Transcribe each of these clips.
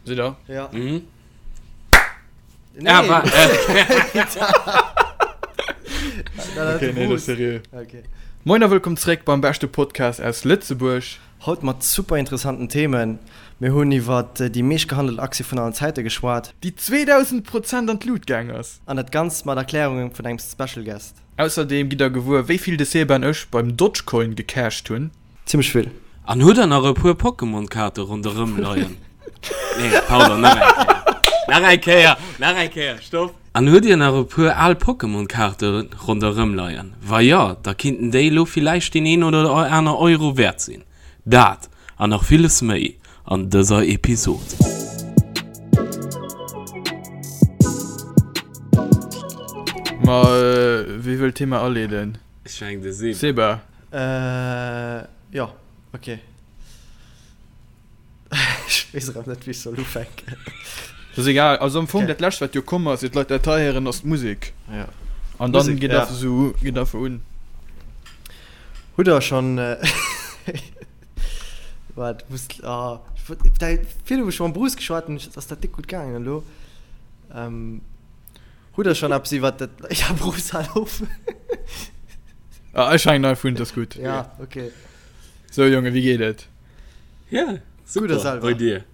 Sidd der? Ja. Mhm. Nee. Ah, wa- äh, Okay, nee, das ist seriö. Okay. Moin a wëllkomm zréck beim beschte Podcast aus Lëtzebuerg. Haut mat super interessanten Themen. Mir hunn iwwer déi meescht gehandelt Aktie vun allen Zäite geschwat. Déi 2000 Prozent an d'Lut gaang ass. An dat Ganzt mat Erklärungen vun engem Special Guest. Ausserdeem gitt der gewuer, wéi vill de Seba an ech beim Dogecoin gecasht hunn. Zimmlech vill. An hutt der nach e puer Pokémon-Kaarte ronderëm leien? Nee, pardon, nach eng Kéier. Nach eng Kéier, nach eng Kéier, stopp. An hutt dir nach e puer al Pokémon-Kaarte ronderëm leien? Wa jo, da kinnten déi elo villäicht deen een oder aner Euro wäert sinn. Dat an nach villes méi an dëser Episod. Ma wie wëll d'Thema aleeden? Ech mengen de Seba. Seba. Äh, jo, ok. Ech weess erëm net, wéi ech soll ufänken. Dat ass egal. Also am Fong, Okay. dat Lescht, wat jo komm ass, ier d'Leit dat hei héieren, ass d'Musek. Ja. An dann Musek, geet ja. einfach esou, geet einfach un. Hutt der schonn. Waart, muss. Ah, ech wollt, da, virdu hu ech mam Bruce geschwat an ass dat déck gutt gaangen elo. Ähm. Hutt der schonn eppes iwwert dat. Ja, Bruce, hal op! Ah, ech hänken einfach un, dat ass gutt. Ja, okay. Sou, Jongen, wéi geet et? Ja, Gutt a super. selwer? Bei dir?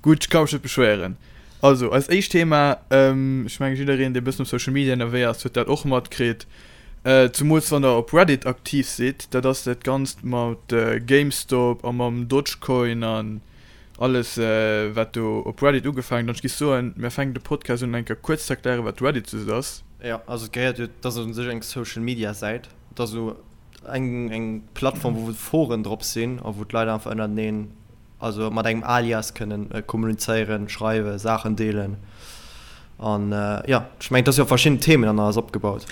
Gutt, ech ka mech net beschwéieren. Also, eist éischt Thema, ech mengen jiddereen, dee e bëssen op Social Media ënnerwee ass, huet dat och matkritt, zumools wann der op Reddit aktiv sidd, dat ass dat Ganzt mat GameStop a mam Dogecoin an Alles wat do op Reddit ugefaangen huet. An ech géif soen, mir fänken de Podcast un eng Kéier kuerz ze erklären, wat Reddit just ass. Jo, also et gehéiert jo, et ass u sech eng Social Media Säit, et ass esou eng eng Plattform wou Foren drop sinn a wou d'Leit einfach ënnerteneen, also mat engem Alias kënnen kommunizéieren, schreiwen, Saachen deelen an jo, ech mengen et ass jo op verschidden Themen an alles opgebaut.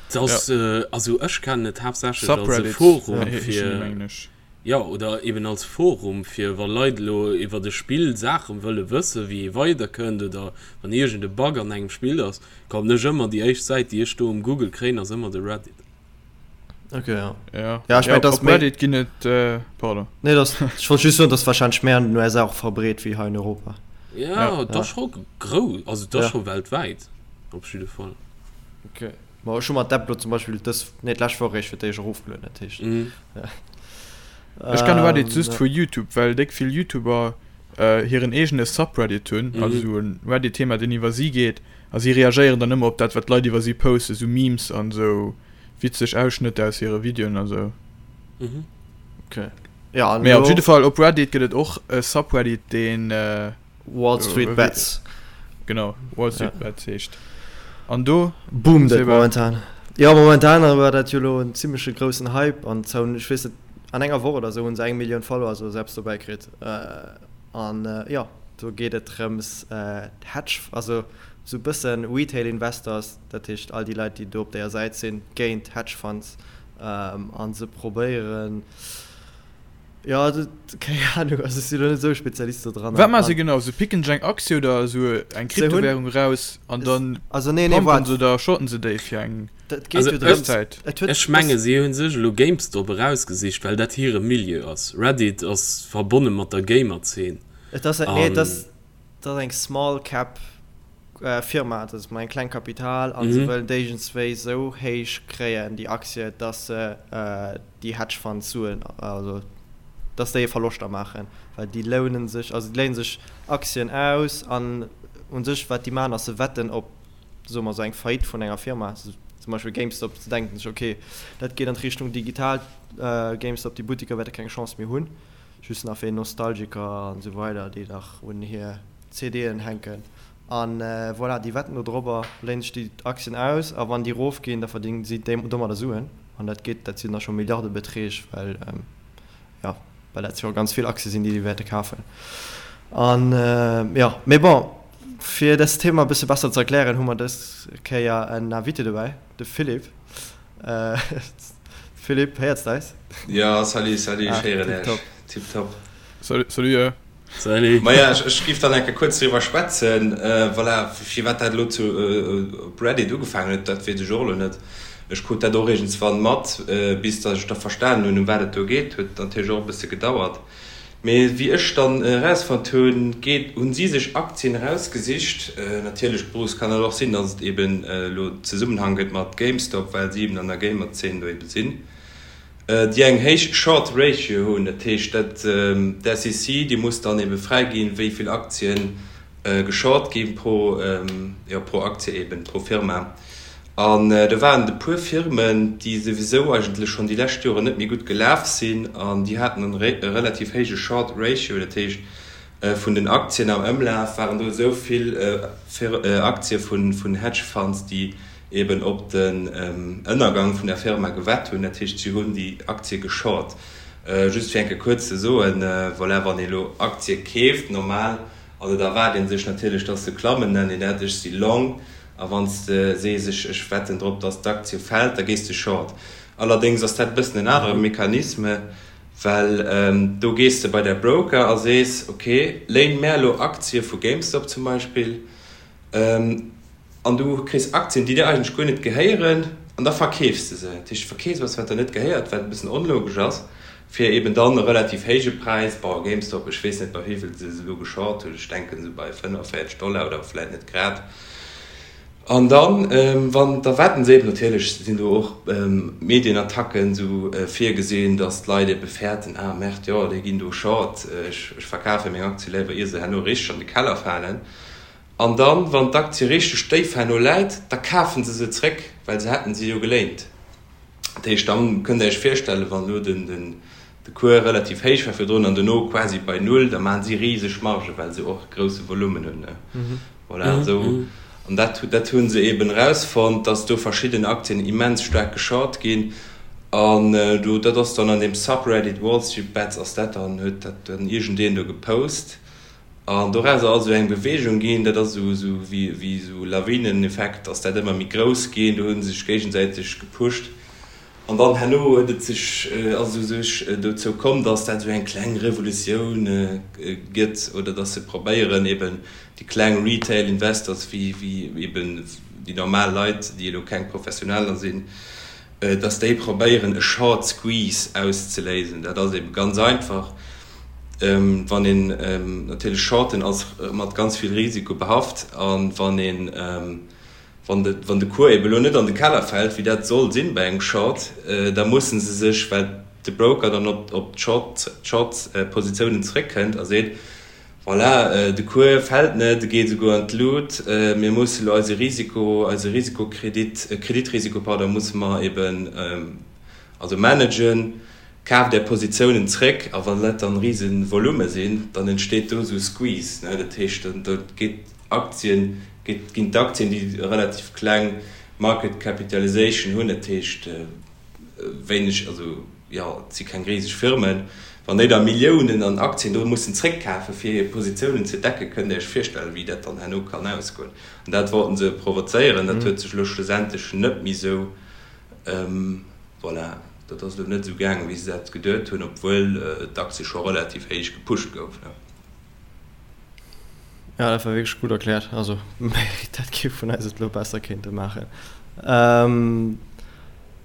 Et ass, also ech kennen et haaptsächlech als e Subreddits Forum heeschen déi, fir. mengen ech. Jo, oder eben als Forum, fir wa Leit elo iwwert e Spill Saache wëlle wëssen, wéi ee weiderkënnt oder wann iergend e Bug an engem Spill ass, kommen ech ëmmer, déi éischt Säit, déi ech do um Google kréien, ass ëmmer de Reddit. Ok, jo. Ja, Ja, ech ja mengen, op dass op méi. Reddit ginn et, pardon. Nee, dass, ech wollt just soen, dass wahrscheinlech méi an den USA och verbreet wéi hei in Europa. Ja, Ja. et ass Ja. scho grouss, also et ass Ja. scho weltwäit op jidde Fall. Ok. Ma ech hu mer d'App lo zum Beispill dës, nee d'lescht Woch eréischt fir d'éischt erofgelueden, dat heescht. Mhm. Ech kenne Reddit just Ähm, vu YouTube, well déck vill YouTuber hiren eegene Subreddit hunn, also Mhm. esou e Reddit-Thema, deen iwwer si geet, a si reagéieren dann ëmmer op dat, wat d'Leit iwwer si posten, esou Memes an esou witzeg Ausschnëtter aus hire Videoen a sou. Mhm. Okay. Ja, an Mee op elo jidde Fall, op Reddit gëtt et och e Subreddit, deen. Wall Street Bets. Genau, Wall Street ja. Bets heescht. An do boomt et momentan. Ja, momentan war dat jo lo en zimmleche groussen Hype an zou, ech weess net, an enger Woch oder sou hunn se eng Millioun Follower so selbst dobäi kritt. Äh, an äh, ja, do geet et drëms äh, Hedge, also sou bëssen Retail Investors, dat heescht all déi Leit, déi do op deeër Säit sinn, géint Hedge Funds ähm, an se probéieren, Jo, also, keng Ahnung, also ech sinn elo net esou e Spezialist do dran. Wat maache se genau? Se picken sech eng Aktie oder esou eng Kryptowährung eraus an dann also, nee, nee, pumpen waart. se oder shorten se déi fir eng Dat geet Also jo ech, drëms, Zäit. et huet, ech menge si hu sech elo GameStop erausgesicht, well dat hire Milieu ass. Reddit ass verbonne mat der Gamer-Zeen Et ass, nee, et an. ass, et ass eng Small Cap Firma, dat ass mat engem kleng Kapital a se Mhm. wëllen déijendswéi esou héich kréien déi Aktie, dass se déi Hedge Funds Suen, also dass déi Verloschter maachen, well déi lounen sech, also déi léinen sech Aktien aus an u sech wat déi maachen ass se wetten op, soe mer esou eng Faillite vun enger Firma, zum Beispill GameStop, se denken sech ok dat geet an d'Richtung digital, GameStop, déi Buttiker wäerte keng Chance méi hunn, just nach fir Nostalgiker an esou weider déi nach un hir CDen hänken an voilà, déi wetten do drobber, léinen sech déi Aktien aus a wann déi rof ginn, da verdéngen si domadder Suen an dat geet, dat sinn da scho Milliardebeträg, well jo, well dat jo ganz vill Aktie sinn, déi déi wäerte kafen an jo. Mee bon, fir dëst Thema e bësse besser ze erklären, hu mer dës Kéier en Invité dobäi, de Philippe. Philippe, héiers de eis? Jo, salut, salut, ech héieren Ah, Iech, tiptop. tiptop. Salut, salut. Salut. Maja, ech giff dann eng Kéier kuerz driwwer schwätzen, voilà, firwat dat elo zu op Reddit ugefaangen huet, dat weess ech och elo net. Ech krut dat och iergendswann mat, bis datt ech da verstanen hunn, ëm wat et do geet, huet natierlech och e bësse gedauert. Mee wéi ech dann erausfonnt hunn, geet, hunn si sech Aktien erausgesicht, natierlech Bruce, kann et och sinn, dass et eben elo Zesummenhang gëtt mat GameStop, well si eben an der Gamer-Zeen do eben sinn, déi eng héich Short Ratio hunn. Dat heescht, dat d'SEC, déi muss dann ebe fräiginn, wéi vill Aktien geshort gi pro, jo, pro Aktie eben, pro Firma. An do waren et e puer Firmen, déi souwisou eigentlech schonn déi lescht Joren net méi gutt gelaf sinn an déi haten e relativ héije Short Ratio, dat heescht vun den Aktien am Ëmlaf waren do esou vill Aktie vun Hedge Funds, déi eben op den Ënnergang vun der Firma gewett hunn. Dat heescht, si hunn déi Aktie geshort. Just fir eng Kéier kuerz ze soen, voilà, wann ee elo Aktie keeft normal, also da erwaart ee sech natierlech, dass se klammen, nennt een dat, ech si long. A wann s de sees, ech ech wetten drop, datt d'Aktie fält, da gees de short. Allerdéngs ass dat e bëssen en anere Mechanisme, well do gees de bei däi Broker a sees, ok, léin mär elo Aktie vu GameStop zum Beispill, an du kriss Aktien, déi dir eigentlech guer net gehéieren, an da verkeefs de se. Dat heescht, du verkeefs eppes, wat der net gehéiert, wat e bëssen onlogesch ass, fir eben dann e relativ héije Präis, bon, GameStop, ech weess net, bei wéi vill se se elo geshort hunn, ech denken esou bei 45 Dollar oder vläit net grad. An dann, wann, da wetten se eben, natierlech sinn do och Medienattacken esou virgesinn, datt d'Leit ebe fäerten, ah merde, jo, déi ginn do short, ech verkafe meng Aktie léiwer, ier se herno richteg an de Keller falen. An dann, wann d'Aktie richteg déif herno läit, da kafe se se zréck, well se hätten se jo geléint. Dat heescht, dann kënnt Der Iech virstellen, wann elo den de Cours relativ héich war virdrun an dono quasi bei Null, da maachen si riseg Margen, well se och e grousse Volumen hunn. Voilà, esou. An dat, dat hu se eeben erausfonnt, dass do verschidden Aktien immens staark geshort ginn. An do, dat ass dann an deem Subreddit Wall Street Bets ass dat dann, huet dat dann iergendeen do gepost. An dorauser ass esou eng Beweegung ginn, dat ass esou, esou wéi, wéi esou Lawineneffekt ass dat ëmmer méi grouss ginn, do hu se sech géigesäiteg gepusht. An dann herno huet et sech, ass et u sech dozou komm, datt dat esou eng kleng Revolutioun gëtt oder datt se probéieren eben déi kleng Retail Investors wéi, wéi eben déi normal Leit, déi elo keng Professioneller sinn, dass déi probéieren e Short Squeeze auszeléisen. Dat ass ebe ganz einfach, wann een natierlech Shorten ass mat ganz vill Risiko behaft a wann een, wann de, wann de Cours ebe lo net an de Keller fält, wéi dat soll sinn bei engem Short, da musse se sech, well de Broker dann op, op d'Short, d'Short-Positiounen zeréckkënnt a seet, Voilà, de Cours fält net, e geet esouguer an d'Lut. Mir musse elo eise Risiko, eise Risikokredit, Kreditrisiko, pardon, musse mer eben also managen. Kaaft Är Positiounen zréck a wann dat dann rise Volume sinn, dann entsteet do esou e Squeeze, ne. Dat heescht, dann da geet d'Aktien, geet, ginn d'Aktien, déi e relativ kleng Market Capitalization hunn, dat heescht wéineg, also jo, et si keng riseg Firmen, wann déi da Milliounen an Aktien do mussen zréckkafen, fir hir Positiounen ze decken, kënnt Dir Iech virstellen, wéi dat dann herno kann ausgoen. An dat wollten se provozéieren. Dat huet sech elo schlussendlech net méi esou, voilà, dat ass elo net esou gaangen, wéi se dat geduet hunn, obwuel d'Aktie scho relativ héich gepusht gouf. Ja, dat war wierklech gutt erkläert. Also dat kee vun eis et elo besser kéinte maachen.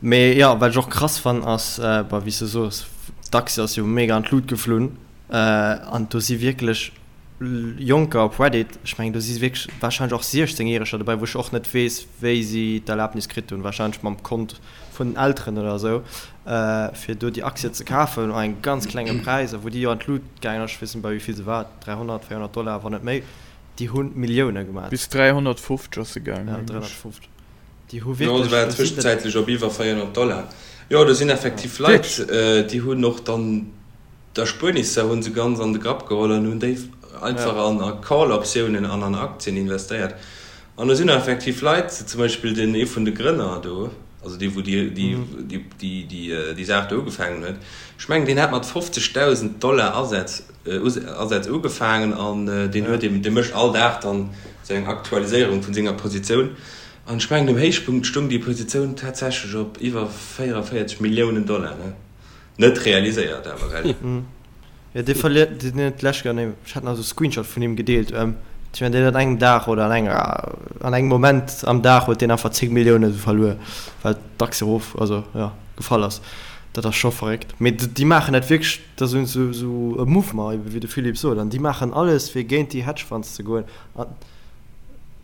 Mee jo, wat ech och krass fannen ass, bah wéi s de soos, d'Aktie ass jo mega an d'Lut geflunn an do si wierklech Jonker op Reddit, ech mengen do si wierklech warscheinlech och 16 Järeger dobäi, wou ech och net weess wéi si d'Erlaabnis kritt hunn, warscheinlech mam Kont vun den Elteren oder esou, fir do déi Aktie ze kafen un engem ganz klenge Präis a wou déi jo an d'Lut gaangen ass, ech weess net bei wéi vill se war, 300, 400 Dollar, wann net méi, déi hu Millioune gemaat. Bis 350 ass se gaangen, Ja, mengen ech. 350. Déi hu Jo, se wierklech, war do sinn net. tëschenzäitlech op iwwer 400 Dollar. Jo, do sinn effektiv Leit, Wierklech? déi hunn och dann d'Erspuernisser hu se ganz an de Grapp geholl an hunn déi einfach an a Call-Optiounen an an Aktien investéiert. An do sinn och effektiv Leit, zum Beispill den ee vun de Grënner do, also dee wou déi déi déi déi Saach do ugefaangen huet, ech mengen deen hat mat 50.000 Dollar Asätz Asätz ugefaangen an deen huet eben, dee mécht all Dag dann esou eng Aktualiséierung vun senger Positioun an ech mengen um Héichpunkt stung déi Positioun tatsächlech op iwwer 44 Milliounen Dollar, ne? Net realiséiert awer, gell? Jo, dee verliert, deen huet d'lescht Kéier, nee, ech hat nach esou e Screenshot vun him gedeelt, ech mengen deen huet an engem Dag oder an enger, an engem Moment am Dag huet deen einfach 10 Millioune verluer, well d'Aktie erof, also jo, gefall ass. Dat ass scho verréckt. Mee déi maachen dat wierklech, dat ass esou esou e Mouvement, ebe wéi de Philippe sot, an déi maachen alles, fir géint déi Hedge Funds ze goen. An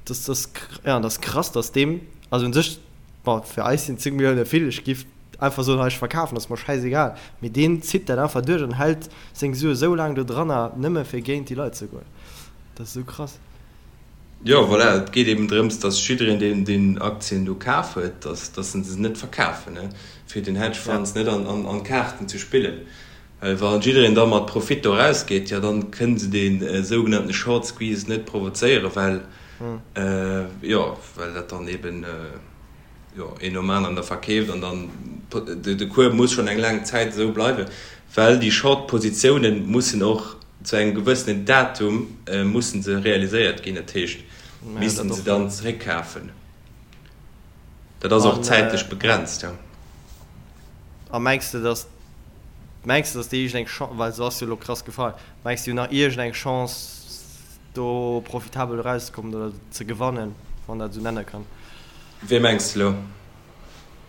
dat ass, ja, dat ass krass, datt deem, also u sech, bon, fir eis sinn 10 Millioune vill, ech giff einfach soen, hei ech verkafen, ass mer schäisegal, mee deen zitt dat einfach duerch an hält seng Sue sou laang do dranner, nëmme fir géint déi Leit ze goen. Dat ass esou krass. Jo, voilà, et geet eben drëms, dass jiddereen, deen deen Aktien do kaf huet, dass dass en se net verkafen, ne, fir den Hedge Funds net an an an d'Kaarten ze spillen. Well wa jiddereen da mat Profit do erausgeet, jo, dann kënne se dee sougenannte Short Squeeze net provozéieren, well, jo, well dat dann eben, jo, een nom aneren da verkeeft an dann de Cours muss schonn eng laang Zäit esou bleiwen, well déi Short Positiounen mussen och zu engem gewëssenen Datum mussen se realiséiert ginn, dat heescht missten se dann zeréckkafen. Dat ass och zäitlech begrenzt, jo. A mengs de, datt, mengs de, datt déi iergendeng Chance, well se ass jo elo krass gefall, mengs de, déi hunn nach iergendeng Chance do profitabel erauszekommen oder ze gewannen, wann dat esou nenne kann? Wee mengs de elo?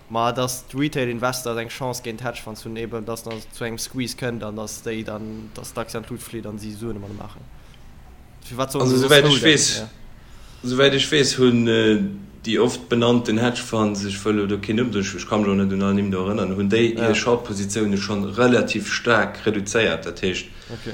Ma dass d'Retail Investors eng Chance géint d'Hedge Funds hunn, eben dass dann zu engem Squeeze kënnt an dass déi dann, dass d'Aktie an d'Lut flitt an si Suen domadder maachen. Firwat sollen Also se soss souwäit ech holden? weess, Ja. souwäit ech weess hunn déi oft benannten Hedge Funds, ech wëll elo do keen Numm soen, ech ka mech och net un all Nimm do erënneren, hunn déi Ja. hir Short-Positioune schonn relativ staark reduzéiert. Dat heescht, Okay.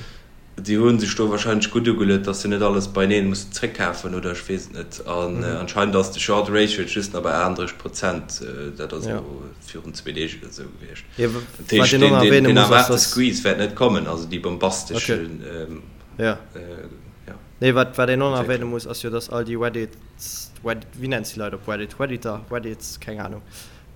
Déi hu sech do wahrscheinlech gutt ugeluet, dass se net alles beineen mussen zréckkafen oder ech weess et net. An anscheinend ass de Short Ratio jetzt just nach bei 38 Prozent, dat ass elo virun zwee Deeg oder esou gewiescht. Dat heescht, deen deen erwaarte Squeeze wäert net kommen, also déi bombastesch, jo. Nee, wat wat een och nach erwähne muss, ass jo, dass all déi Reddits, wéi nenns de déi Leit op Reddit, Redditor, Reddits, keng Ahnung,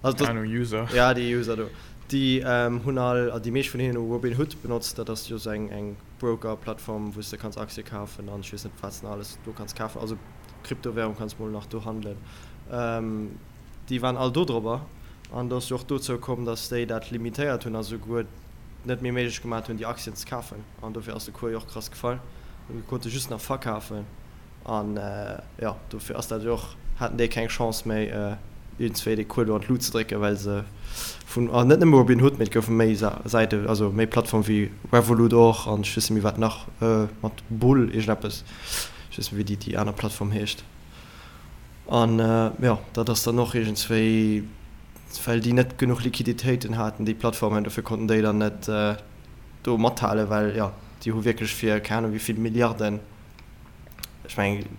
also Keng Ahnung, User. Ja, déi User do. Déi hunn all, déi meescht vun hinnen hu Robinhood benotzt. Dat ass jo sou eng eng Broker-Plattform, wou s de kanns Aktie kafen an ech weess net wat s de nach alles do kanns kafen. Also Kryptowärung kanns mol nach do handelen. Déi waren all do drobber an do ass jo och dozou komm, datt déi dat limitéiert hunn a souguer net méi méiglech gemat hunn déi Aktien ze kafen an dofir ass de Cours jo och krass gefall. Du konnte just nach verkafen. An jo, dofir ass dat jo och, haten déi keng Chance méi iergendswéi dee Cours do an d'Lut ze drécken, well se vun, an net nëmme Robinhood, mee et goufe méi Säiten, also méi Plattforme wéi Revolut och an ech weess net méi wat nach, mat Bull iergendeppes, ech weess net méi wéi déi aner Plattform heescht. An jo, dat ass dann och iergendswéi, well déi net genuch Liquiditéiten haten, déi Plattformen, dofir konnten déi dann net do mathalen, well jo, déi hu wierklech fir keng Ahnung wéi vill Milliarden, ech mengen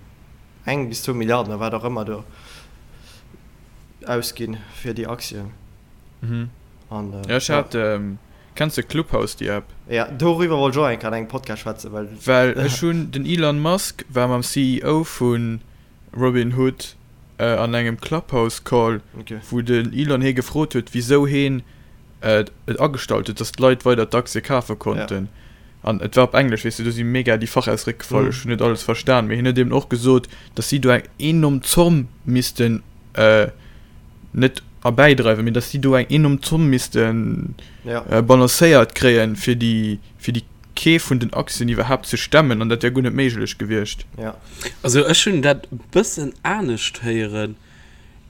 eng bis zwou Milliarden oder wat och ëmmer do ausginn fir déi Aktien. Mhm. An, Ja, ech ja. hat, kenns de Clubhouse, déi App? Ja, doriwwer wollt ech och eng Kéier an engem Podcast schwätzen, well. Well ech hunn, den Elon Musk war mam CEO vu Robinhood an engem Clubhouse Call, Okay. wou den Elon hie gefrot huet, wisou heen et agestallt huet, dass d'Leit weider d'Aktie kafe konnten. An et war op Englesch, weess de, do si mega déi Fachausdréck gefall, ech hunn net alles verstan, mee hien huet eben och gesot, dass si do eng enorm Zomm missten, net erbäidreiwen, mee dass si do eng enorm Zomm misste balancéiert kréien, fir déi, fir déi Keef vun den Aktien iwwerhaapt ze stemmen, an dat wär guer net méiglech gewiescht. Also ech hunn dat e bëssen anescht héieren.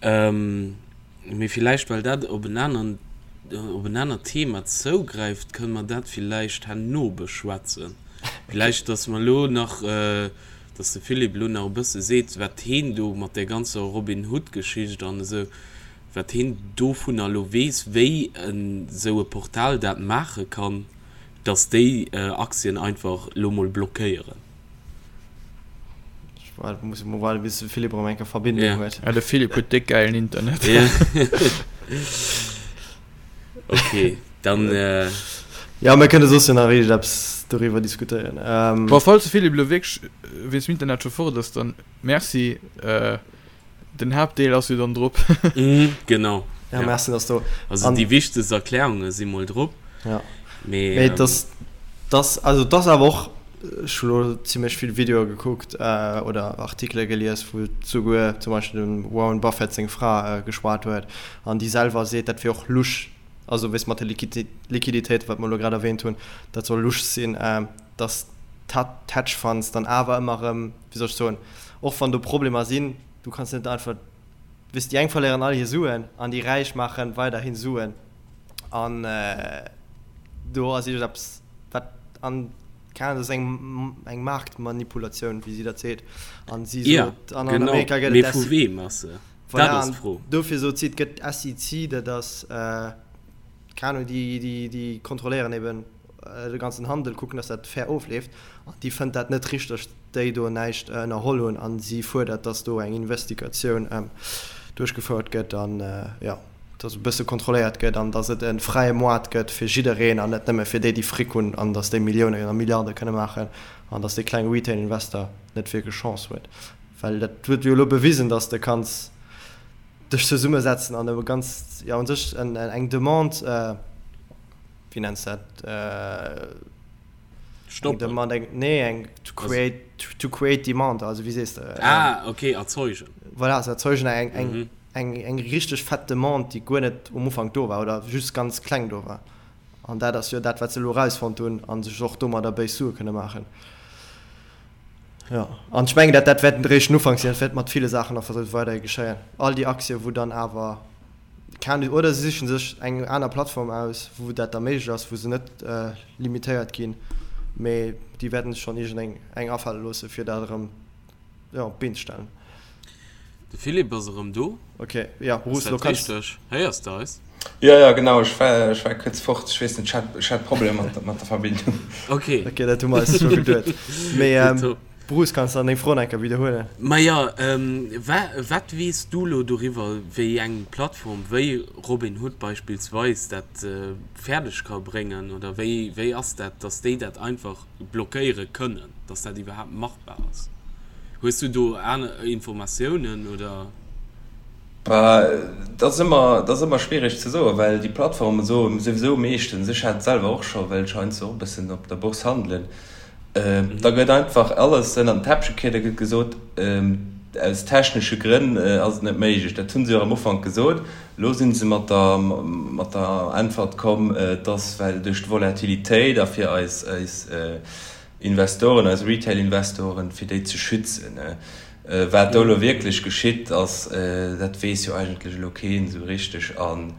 Mee villäicht, well dat op en aneren, op en anert Thema zougräift, kënne mer dat villäicht herno beschwätzen. Villäicht, dass mer elo nach, dass de Philippe elo nach e bësse seet, wat heen do mat där ganzer Robin Hood-Geschicht an esou, wat heen dovunner elo weess, wéi esou e Portal dat maache kann, dass déi Aktien einfach elo mol blockéieren. Ech muss mol waarden, bis de Philippe erëm eng Kéier Verbindung Ja. huet. Ja, de Philippe huet déck gäilen Internet. Ja. Okay, dann. Äh, Ja, mir kënne soss jo nach iergendeppes doriwwer diskutéieren. Ähm, Bon, falls de Philippe elo wierklech wéinst dem Internet scho fort ass, dann merci. Äh, den Haaptdeel ass jo dann drop. Mhm, genau. Ja, merci, dass du. Also An, déi wichtegst Erklärunge si mol drop. Ja. Mee, Mee ähm, das, das, also das awer och, ech hu lo zimmlech vill Videoe gekuckt äh, oder Artikele gelies, wou souguer zum Beispill dem Warren Buffett seng Fra äh, geschwat huet an déi selwer seet, dat wier och lusch, also weess mat de Liquiditéiten, wat mer elo grad erwähnt hunn, dat soll lusch sinn, äh, dass d'Hedge Funds dann awer ëmmer erëm, wéi soll ech soen, och wann do Problemer sinn, du kanns net einfach, weess, déi eng verléieren all hir Suen an déi Räich maache weiderhi Suen. An do ass iergendeppes, wat an, keng Ahnung, dat ass eng, eng Maartmanipulatioun, wéi si dat seet. An si sot, an an Amerika gëtt et. Mee vu weem ass se? Voilà, Dat ass d'Fro. Dofir sot si, et gëtt d'SEC, dat ass, keng Ahnung, déi, déi, déi kontrolléieren eben de ganzen Handel, kucken, dass dat fair ofleeft. An déi fënnt dat net richteg, déi do näischt ënnerholl hunn. An si fuerdert, dass do eng Investigatioun duerchgefouert gëtt an, jo, dass e bësse kontrolléiert gëtt an dass et e fräie Moart gëtt fir jiddereen an net nëmme fir déi, déi Fric hunn an dass déi Milliounen a Milliarde kënne maachen an dass dee klenge Retail-Investor net wierklech Chance huet. Well dat huet jo elo bewisen, dass de kanns dech zesummesetzen an e ganz, jo, u sech eng Demande, wéi nenns de dat? Stoppen. Eng Demande, eng, nee, eng to create, to create demand, also wéi sees de? Ah, okay, erzeugen. Voilà, se erzeugen eng, eng, mhm. eng, eng richteg fett Demande, déi guer net um Ufank do war oder just ganz kleng do war. An dat ass jo dat, wat se elo erausfonnt hunn an sech och domadder béis Sue kënne maachen. Jo, an ech mengen, dat, dat wäert eréischt den Ufank sinn, dat wäert mat ville Saachen nach versucht weiderhi geschéien. All déi Aktie, wou dann awer Keen, oder se sichen sech eng aner Plattform aus, wou dat da méiglech ass, wou se net limitéiert ginn, mee déi wäerten sech schonn iergendeng eng afale loosse fir dat erëm, jo, op d'Been ze stellen. De Philippe ass erëm do. Ok, jo, Bruce, elo kanns. Ass dat richteg? Héiers de eis? Jo, jo, genau, ech war, ech war kuerz fort, ech weess net, ech hat, ech hat Problemer mat, mat der Verbindung. Ok. Ok, dat hu mer eis scho geduet. Mee. Bruce, kanns de dann deng Fro nach eng Kéier widderhuelen? Maja, wat weess du lo doriwwer, wéi eng Plattform wéi Robinhood beispillsweis dat fäerdeg ka bréngen? Oder wéi, wéi ass dat, datt déi dat einfach blockéiere kënnen, datt dat iwwerhaapt machbar ass? Hues du do aner Informatiounen oder? Bah, dat ass ëmmer, dat ass ëmmer schwiereg ze soen, well déi Plattforme soe souwisou meeschtens, ech hat et selwer och scho, well ech heiansdo och e bëssen op der Bourse handelen, Da gëtt einfach alles ënnert den Teppech gekiert, da gëtt gesot, aus technesche Grënn ass et net méiglech. Dat hu se jo am Ufank gesot. Elo si se mat der, mat der Äntwert komm, et ass well duerch d'Volatilitéit a fir eis, eis Investoren, eis Retail-Investoren, fir déi ze schützen. Wat do elo wierklech geschitt ass, dat weess jo eigentlech elo keen esou richteg. An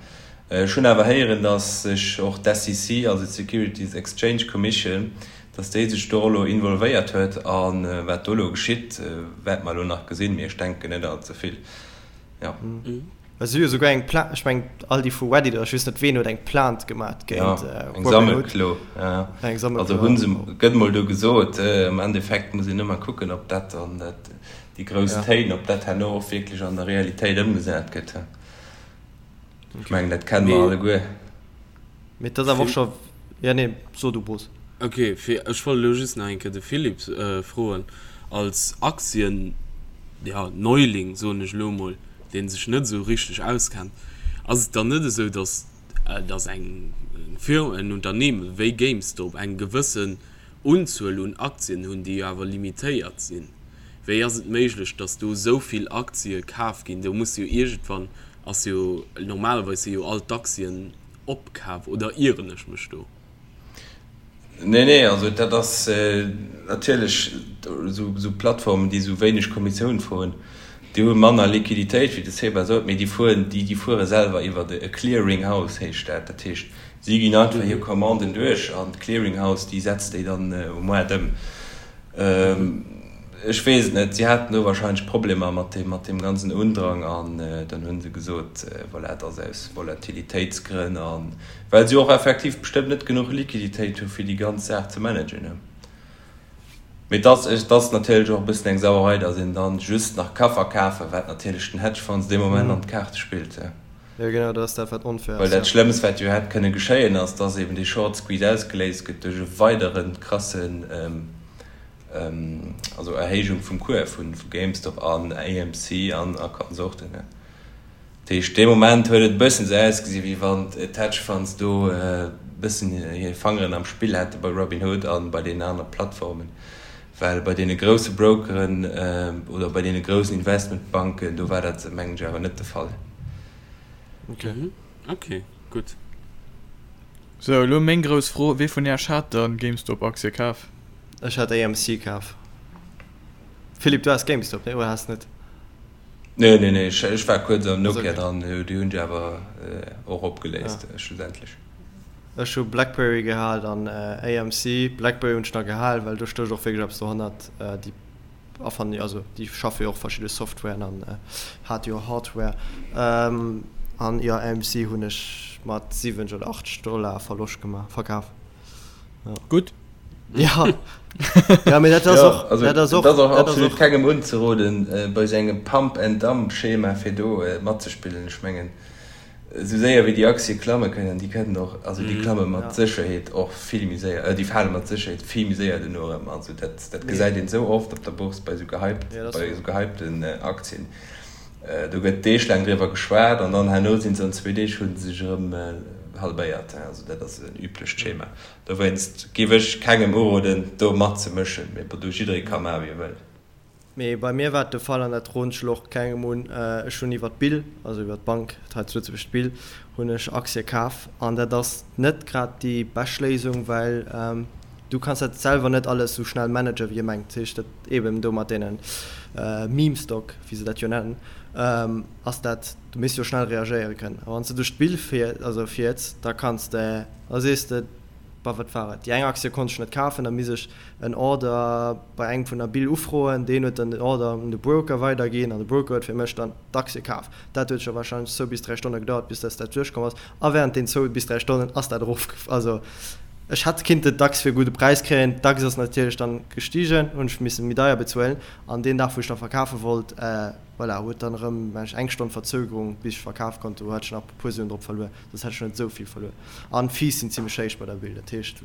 ech hunn awer héieren, datt sech och d'SEC, also d'Securities Exchange Commission, Dass déi sech do elo involvéiert huet a wat do elo geschitt, wäerte mer elo nach gesinn, mee ech denken net all ze vill, jo. Well si hu jo souguer eng Plainte, ech mengen all déi vu Reddit oder ech weess net ween huet eng Plainte gemat géint Robinhood. Eng Sammelklo, ja. Eng Sammelklo. Also hu se, gëtt mol do gesot, am Endeffekt muss een ëmmer kucken, ob dat dann dat, déi grouss Téin, ob dat herno och wierklech an der Realitéit ëmgesat gëtt. Ech mengen, dat kenne mer alleguer. Mee et ass awer och scho, jo nee, so du Bruce. Ok, fir, ech wollt elo just nach eng Kéier de Philippe froen, als Aktien, ja, Neuling, soen ech elo emol, dee sech net esou richteg auskennt, ass et dann net esou, datt, datt eng Firma, en Unternehmen wéi GameStop eng gewëssen Unzuel un Aktien hunn, déi jo awer limitéiert sinn? Wéi ass et méiglech, datt do esou vill Aktie kaf ginn? Do muss jo iergendwann, ass jo, normalerweis si jo all d'Aktien opkaf, oder ieren ech mech do? Nee, nee, also dat ass natierlech esou Plattformen, déi esou wéineg Kommissioun froen, déi hu manner Liquiditéit, wéi de Seba sot, mee déi fueren, déi fuere selwer iwwer e Clearing House heescht dat. Dat heescht, si ginn einfach hir Commanden duerch an d'Clearing House, déi setzt déi dann um Moart ëm. Ech weess et net, si haten do wahrscheinlech Problemer mat deem, mat deem ganzen Undrang an dann hu se gesot, voilà, et ass aus Volatilitéitsgrënn a well se och effektiv bestëmmt net genuch Liquiditéit hu fir déi ganz Saach ze managen. Mee et ass, et ass natierlech och e bëssen eng Sauerei, datt een dann just nach ka verkafen, wat natierlech den Hedgefonds dee Moment an d'Kaarte spillt. Jo genau, dat ass dat wat onfair ass. Well dat Schlëmmst wat jo hätt kënne geschéien ass, dass eben dee Short Squeeze ausgeléist gëtt duerch e weidere krassen, also Erhéijung vum Cours vu GameStop an AMC an a Konsorten. Dat heescht dee Moment huet et e bëssen esou ausgesi wéi wann d'Hedge Funds do e bëssen hir Fangeren am Spill hätte bei Robinhood a bei deenen anere Plattformen, well bei deene grousse Brokeren oder bei deene groussen Investmentbanken do war dat mengen ech awer net de Fall. Ok. Ok, gutt. Sou, elo meng grouss Fro, Wee vun Äerch hat dann GameStop-Aktie kaf? Ech hat AMC kaf. Philippe, du has GameStop, nee, oder has net? Nee, nee, nee, ech war kuerz an Nokia dran, déi hunn ech awer och opgeléist schlussendlech. Ech hu Blackberry gehal an AMC. Blackberry hunn ech nach gehal, well do stécht och wierklech eppes dohannert. Déi erfannen jo, also déi schaffe jo och verschidde Softwaren an hate jo Hardware. An jo, AMC hunn ech mat 70 oder 80 Dollar Verloscht gemaach, verkaf. Gutt. Ja, ja mee dat ass och, also, dat ass och, dat ass och dat ass absolut och. kengem unzeroden, bei esou engem Pump and Dump Schema fir do matzespillen. Ech mengen, esou séier wéi déi Aktie klamme kënnen, déi kënnen och, also déi klamme mat Sécherheet och vill méi séier, déi fale mat Sécherheet vill méi séier duerno erëm. Also dat, dat gesäit een esou oft op der Bourse bei esou gehypt, bei esou gehypten Aktien. Do gëtt deeglaang driwwer geschwat an dann herno sinn se an zwee Deeg hu se sech erëm halbéiert. Also dat ass en üblecht Schema. Dowéinst géif ech kengem uroden do matzemëschen, mee bon, do jidderee ka maache wéi e wëll. Mee bei mir war et de Fall, an dat roden ech elo och kengem un, ech hunn iwwer d'Bill, also iwwer d'Bank hei zu Lëtzebuerg, d'Bill, hunn ech Aktie kaf. An dat ass net grad déi bescht Léisung, well du kanns dat selwer net alles esou schnell managen, wéi ee mengt. Dat heescht, dat eeben do mat deene Meme Stock, wéi se dat jo nennen, ass dat, du misst jo schnell reagéiere kënnen. A wann s de duerch d'Bill fiers, da kanns de Da sees de, Bah, wat war et? Déi eng Aktie konnt ech net kafen, da misst ech en Order bei engem vun der Bill ufroen. Deen huet dann den Order un de Broker weiderginn an de Broker huet fir mech dann d'Aktie kaf. Dat huet scho warscheinlech zwou bis dräi Stonne gedauert, bis dass dat duerchkomm ass. A während den zwou bis dräi Stonnen ass dat erof. Also ech hätt kinnten d'Aktie fir e gudde Präis kréien. D'Aktie ass natierlech dann gestigen, hunn ech misse méi deier bezuelen. An deen Dag, wou ech da verkafe wollt, voilà, huet dann erëm, mengen ech, eng Stonn Verzögerung, bis ech verkaf konnt. Do hat ech nach e puer Suen drop verluer. Soss hätt ech net esou vill verluer. An d'Fees sinn zimlech héich bei der Bill. Dat heescht,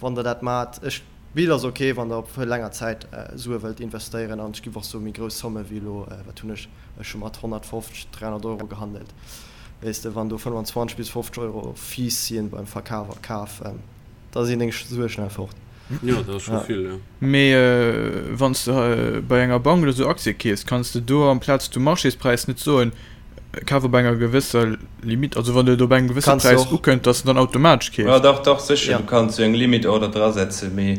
wann der dat maacht, ech, d'Bill ass ok, wann der op länger Zäit Sue wëllt investéieren. An ech giff och soe méi grouss Somme wéi elo, wat hunn ech, ech hu mat 150, 300 Euro gehandelt. Weess de, wann do 25 bis 50 Euro Fees sinn beim Verkaf a Kaf, da sinn deng Sue schnell fort. Jo, dat ass scho vill, jo. Mee wann s de bei enger Bank oder sou Aktie keefs, kanns de do amplaz du Marchéspräis net soen, Kaf op enger gewësser Limite, also wann et op engem gewësse Präis ukënnt, dass en dann automatesch keeft. Jo, dach, dach, sécher, du kanns jo eng Limit Order drasetzen, mee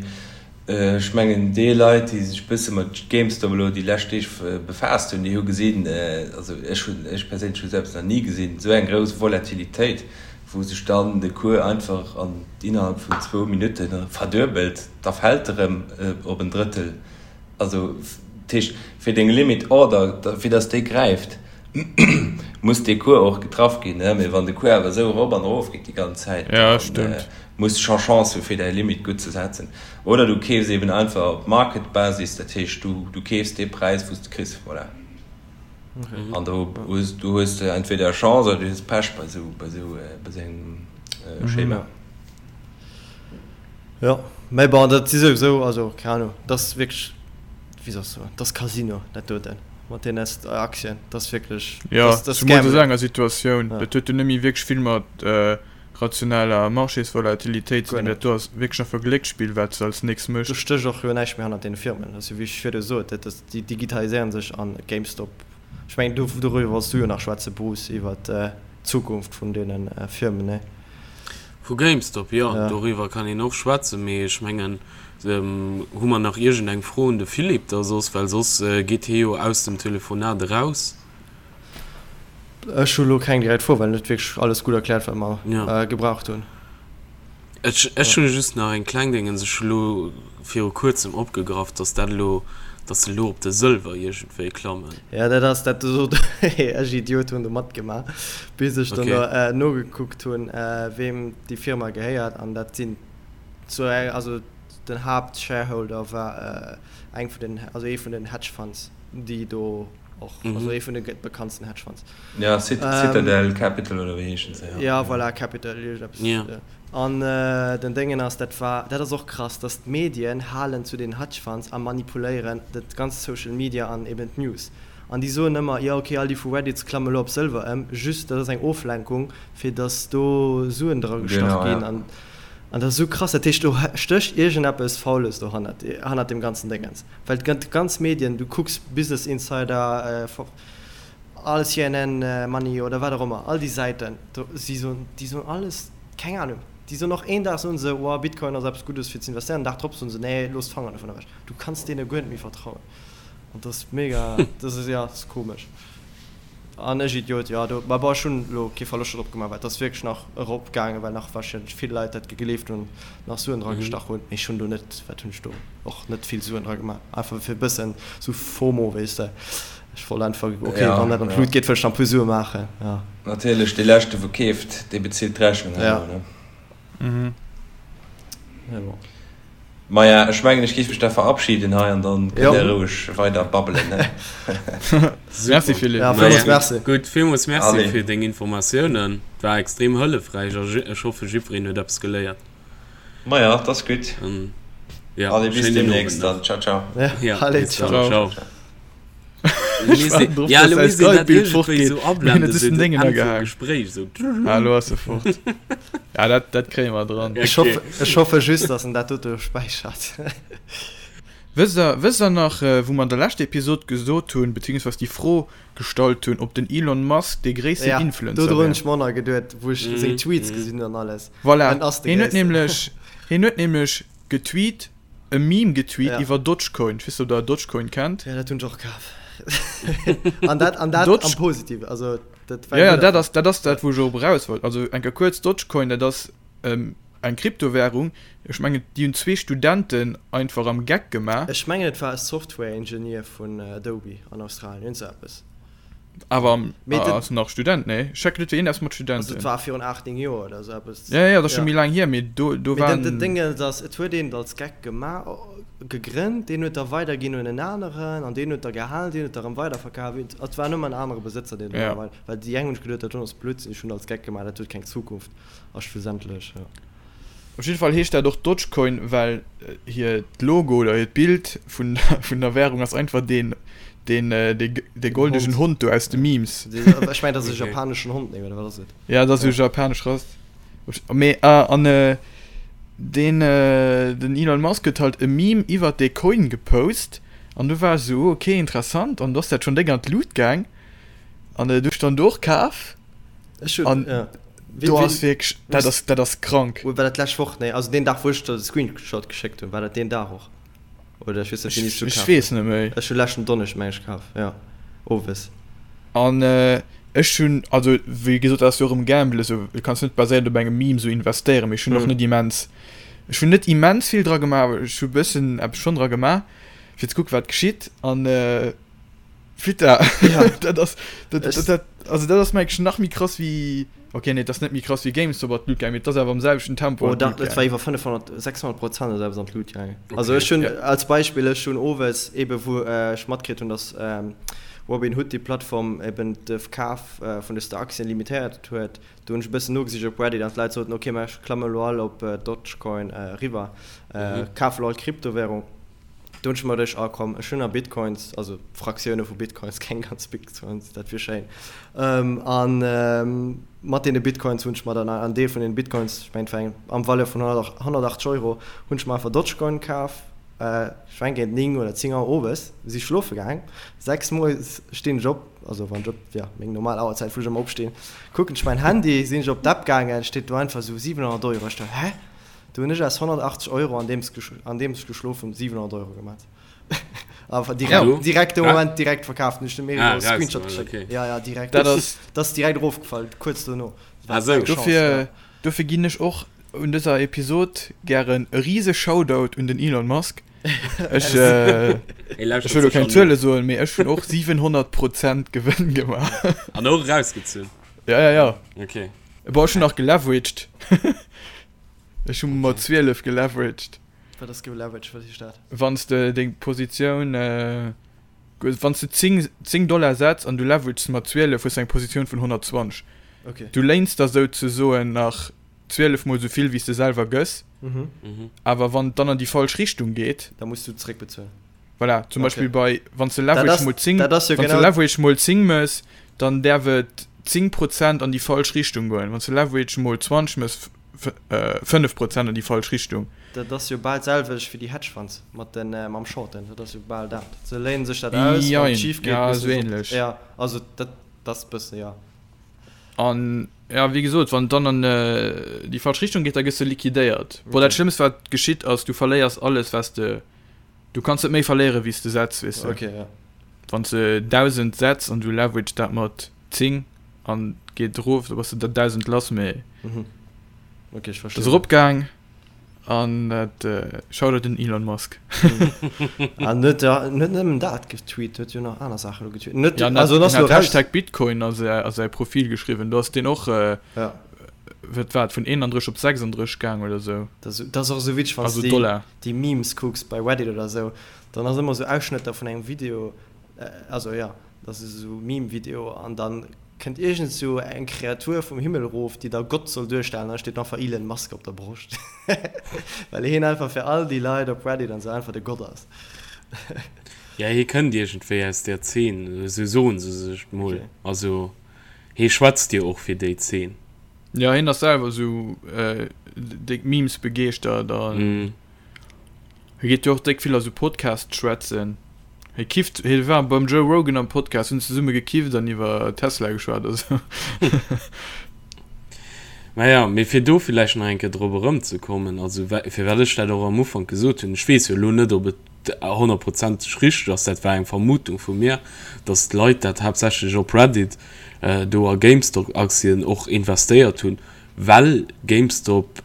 ech mengen déi Leit, déi sech e bësse mat GameStop elo déi lescht Deeg befaasst hunn, déi hu gesinn, also ech hunn, ech perséinlech hu selbst nach ni gesinn, esou eng grouss Volatilitéit, wou sech dann de Cours einfach an innerhalb vun zwou Minutte verduebelt, da fält e rëm op en Drëttel. Also, dat heescht, fir deng Limit Order, fir datt déi gräift, muss dee Cours och getraff ginn. Mee wann de Cours awer esou erop an erof geet déi ganz Zäit, da muss de scho Chance hu fir däi Limit gutt ze setzen. Oder du keefs eben einfach op Market-Basis, dat heescht, du keefs dee Präis, wou s de kriss. Voilà. An do hues du hues entweder Chance oder du hues Pech bei esou bei esou bei esou engem Schema. Jo, mä bon, dat si souwisou, also keng Ahnung, dat ass wierklech, wéi soll ech soen, dat ass Casino, dat doten, mat deene Aktien, dat ass wierklech, Jo, dat ass zemools a sou enger Situatioun, dat huet jo net méi wierklech vill mat rationeller Marchésvolatilitéit ze dinn, dat do ass wierklech einfach Glécksspill, wat s de als nächst méchs. Do stécht och jo näischt méi hannert deene Firmen, dat ass jo wéi ech virdu sot, dat ass, déi digitaliséieren sech an GameStop, ech mengen do, doriwwer wollts du jo nach schwätzen, Bruce, iwwer d'Zukunft vun deene Firmen, nee? Vu GameStop, jo, doriwwer kann een och schwätzen, mee ech mengen, hu mer nach iergendeng Fro un de Philippe da soss, well soss geet hie jo aus dem Telefonat eraus. Ech hu lo keng direkt Fro, well en huet wierklech alles gutt erkläert, wat mer gebraucht hunn. Ech ech hu just nach eng kleng Déngens, ech hu lo viru kuerzem opgegraff, dass dat elo, dass se elo op de Sëlwer iergendwéi klammen. Ja, dat ass dat sot ech Idiot hunn do matgemaach, bis ech dann do nogekuckt hunn, weem déi Firma gehéiert an dat sinn zu eng, also den Haaptshareholder war eng vun den, also ee vun den Hedge Funds, déi do och, also ee vun de bekanntsten Hedge Funds. Ja, Citadel Capital oder wéi heeschen se? Ja, voilà, Capital, iergendeppes. Ja. An den Déngen ass, dat war, dat ass och krass, dass d'Medien halen zu den Hedge Funds a manipuléieren dat ganzt Social Media an eben d'News. An déi soen ëmmer, jo ok, all déi vu Reddit klamme lo op Sëlwer ëm, just dat ass eng Oflenkung, fir dass do Suen dra gestach ginn. An an dat ass esou krass. Dat heescht, do stécht iergendeppes Faules dohannert, hannert deem ganzen Déngens. Well d'ganz Medien, du kucks Business Insider, All CNN Money oder wat och ëmmer, all déi Säiten, do, si soen, déi soen alles, keng Ahnung, déi soen och een Dag soen se, wow, Bitcoin ass eppes Guddes fir ze investéieren, den Dag drop soen se, nee, looss d'Fanger dovun ewech. Du kanns deene guer net méi vertrauen an dat ass mega, dat ass, jo, dat ass komesch. An ech Idiot, jo do, ma bon ech hunn elo kee Verloscht drop gemaach, well et ass wierklech nach erop gaangen, well nach warscheinlech vill Leit dat gegleeft hunn, nach Suen dra gestach hunn, mee ech hunn do net, wat hunn ech do och net vill Suen dra gemaach, einfach fir e bëssen sou FOMO, weess de, ech wollt einfach, ok wann dat an d'Lut geet, wëll ech nach e puer Sue maachen, jo. Natierlech, dee leschte wou keeft, dee bezilt d'Rechnung herno, ne? Mee bon. Maja, ech mengen ech géif mech da verabschieden hei an dann kënnt der roueg weider babbelen, ne? Merci Philippe. Ja, villmools Merci. Gutt, villmools Merci fir deng Informatiounen. Et war extrem hëllefräich a ech hoffe jiddwereen huet eppes geléiert. Maja, 't ass gutt. Ja, Allez, bis schéinen Owend demnächst nach. dann. Ciao, ciao. Ja, Ja, allez, bis dann. ciao. Ciao. Ech waarden drop, Ja, dass lo säi misst een dat Skype-Bild iergendwéi fortgeet. sou Mir hunn ablenden, et sou just den den Déngen Enn vum agehaang. Gespréich sou. Ah, elo ass e fort. Ja, dat, dat kréie mer dran. Ech Okay. hoffe, ech hoffe just, dass en dat dote späichert. Wësst der, wësst der nach, wou mer an der leschter Episod gesot hunn, beziehungsweis déi Fro gestallt hunn, ob den Elon Musk dee gréissten Ja, Influencer dodru hunn wär? ech mer och nach geduet, wou ech seng Tweets gesinn hunn an alles. Voilà, En ass de hien huet Gréissten. nämlech, hien huet nämlech getweet, e Meme getweet Ja. iwwer Dogecoin. Ech weess net, ob der Dogecoin kennt. Ja, dat hunn ech och kaf. An dat, an dat Doge- am Positive, also dat war Ja, ja, gutt dat ass, dat ass dat, wou ech och eraus wollt. Also eng Kéier kuerz, Dogecoin, dat ass ähm, eng Kryptowährung. Ech mengen, déi hunn zwee Studenten einfach am Geck gemaach. Ech mengen et war e Software Engineer vun Adobe an Australien, iergend sou eppes. Awer am, Mee den- ass nach Student, nee? Ech checken net, wéi een ass mat Also Studenten. et war virun 8, 9 Joer oder sou eppes. Ja, ja, dat ass scho Ja. méi laang hier, mee do, do Mee den, den waren. Ding ass, et huet een et als Geck gemaach, gegrënnt, deen huet da weiderginn un en aneren an deen huet da gehalen, deen huet da rëm weiderverkaf. Et war nëmmen en anere Besëtzer, deen Ja. da weider, well déi eng hunn sech geduet, dat do ass Blödsinn, ech hunn et als Geck gemaach, dat huet keng Zukunft a schlussendlech, ja. Op jidde Fall heescht dat och Dogecoin, well hiert Logo oder hiert Bild vun vun der Währung ass einfach deen deen dee goldegen Hond do aus de Memes. Ech mengen dat ass e japaneschen Hond, nee oder wat ass et? Ja dat ass esou japanesch Rass. Mee ah an deen den Elon Musk huet halt e Meme iwwert dee Coin gepost an du war ech esou ok interessant an du ass dat schonn déck an d'Lut gaang an du ech dann do och kaf. Ech hunn, An ja. Wéi, do wéi, ass wierklech, dat ass, dat ass krank. War dat d'lescht Woch? Nee, also deen Dag, wou ech der de Screenshot geschéckt hunn, war dat deen Dag och? Oder ech weess net, wéini s du Ech kaf weess hues. net méi. Ech hu leschten Donneschd, meng ech, kaf, ja, owes. An ech hunn, also wéi gesot, dat ass jo och erëm Gamble, esou, du kanns net baséierend op engem Meme esou investéieren, mee ech hunn och net immens, ech hunn net immens vill dra gemaach, awer ech hu bëssen eppes schonn dra gemaach, fir ze kucken, wat geschitt. An Fitta, Ja. dat ass, dat, Ech- dat, dat, also dat ass mengen ech nach méi krass wéi, okay nee, dat ass net méi krass wéi GameStop an d'Lut gaangen, mee et ass awer am selwechten Tempo Oh, an dat, d'Lut dat war gaangen. iwwer 500, 600 Prozent oder eppes an d'Lut gaangen. Also Okay. ech hunn Ja. als Beispill, ech hunn owes ebe wou ech matkritt hunn, datt Robinhood déi Plattform eben de Verkaf vun dëster Aktien limitéiert huet, do hunn ech e bëssen nogesicht op Reddit an d'Leit soten, okay, mä ech klamme elo all op Dogecoin eriwwer, kafe elo all Kryptowährung. Do hunn ech mer geduecht, ah komm, ech hunn nach Bitcoins, also Fraktioune vu Bitcoins, keng ganz Bitcoins, dat wier schéin. A mat deene Bitcoins hunn ech mer dann en Deel vun deene Bitcoins, ech mengen et war eng am Valeur vun 180 Euro, hunn ech mer einfach Dogecoin kaf. Ech mengen géint 9 oder 10 Auer owes si ech schlofe gaang. 6 moies stinn ech op, also wann ech op, jo, meng normal Auerzäit wou ech ëmmer opstinn, kucken ech mäin Handy, sinn ech op d'App gaangen, steet do einfach esou 700 Euro. Ech do, hä? Do hunn ech aus 180 Euro andeems andeems ech geschlof hunn 700 Euro gemat. Awer direkt, Ja. direkt de Ja. Moment direkt verkaaft. Hunn ech dem Erik Ah, och e Screenshot rausgemaach, geschéckt. okay. Ja, ja, direkt. Dat ass, Dat ass direkt erofgefall, kuerz dono. Dat war Ah, sou. eng Chance, dofir, ja. dofir ginn ech och un dëser Episod gären e rise Shoutout un den Elon Musk. Ech, äh, Hie lauschtert ech wëll lo sech keng an. Zuele soen, mee ech hunn och 700 Prozent Gewënn gemaach. An och erausgezunn. Ja, ja, ja. Okay. Boah, ech hunn nach geleveraged. Ech hu mat 12 geleveraged. Wat ass geleveraged? Wat heescht dat? Wann s de deng Positioun, wann s de 10, 10 Dollar setz an du leverages mat 12, hues de eng Positioun vun 120. Okay. Du léins der souzesoen nach 12 mol sou vill wéi s de selwer gëss. Mhm. Awer wann et dann an déi falsch Richtung geet. Da muss du zeréckbezuelen. Voilà, zum Okay. Beispill bei, wann s de Dat Leverage ass, mol 10, dat ass jo wann s de genau. Leverage mol 10 mëss, dann däerf et 10 Prozent an déi falsch Richtung goen. Wann s de Leverage mol 20 mëss, 5 Prozent an déi falsch Richtung. Dat ass jo bal d'selwecht wéi déi Hedge Funds mat den, mam Shorten. Dat ass jo bal dat. Se léinen sech dat aus, wann et Jein, schif geet, ja, musse esou se op, ähnlech. ja, also dat ass e bësse, ja. An, ja, wéi gesot, wann et dann an déi falsch Richtung geet, da gëss de liquidéiert. Bon, dat Okay. Schlëmmst, wat geschitt, ass, du verléiers alles, wat s de Du kanns net méi verléieren wéi s de setz, weess de. Okay, ja. Wann s de 1.000 setz an du leverage dat mat. 10 an geet erof, da bass de der 1.000 lass, mee Mhm. Okay, ech dat ass verstinn. eropgaang an dat Shoutout un Elon Musk. An huet ja net nëmmen dat getweet, huet jo nach aner Saachen elo getweet. Net, Ja, an also en hat, ass en lo hat raus. Hashtag Bitcoin a säi, a säi Profil geschriwwen, do ass deen och, Ja. wat war et, vun 31 op 36 gaang oder sou. Dat ass, dat ass och esou witzeg, wann s Also de déi, Dollar. déi Memes kucks bei Reddit oder sou, dann ass ëmmer sou Ausschnëtter vun engem Video, also jo, dat ass esou Meme-Video an dann kënnt iergend sou eng Kreatur vum Himmel erof, déi da Gott soll duerstellen an da steet einfach Elon Musk op der Broscht, well hien einfach fir all déi Leit op Reddit an sou einfach de Gott ass. Ja, hie kënnt iergendwéi aus där Zeen, esou soen se sech mol. Okay. Also hie schwätzt jo och fir déi Zeen. Ja, hien ass selwer esou déck Memes begeeschtert an. Hie geet jo och déck vill a sou Podcasts schwätzen. Hie kifft, hie war beim Joe Rogan am Podcast, hunn zesumme gekifft an iwwer Tesla geschwat a sou. Naja, mee fir do villäicht nach eng Kéier drop erëmzekommen, also firwat ech dat och am Ufank gesot hunn, ech weess jo elo net, ob et honnertprozenteg richteg ass, dat war eng Vermutung vu mir, datt d'Leit dat haaptsächlech op Reddit do a GameStop-Aktien och investéiert hunn, well GameStop,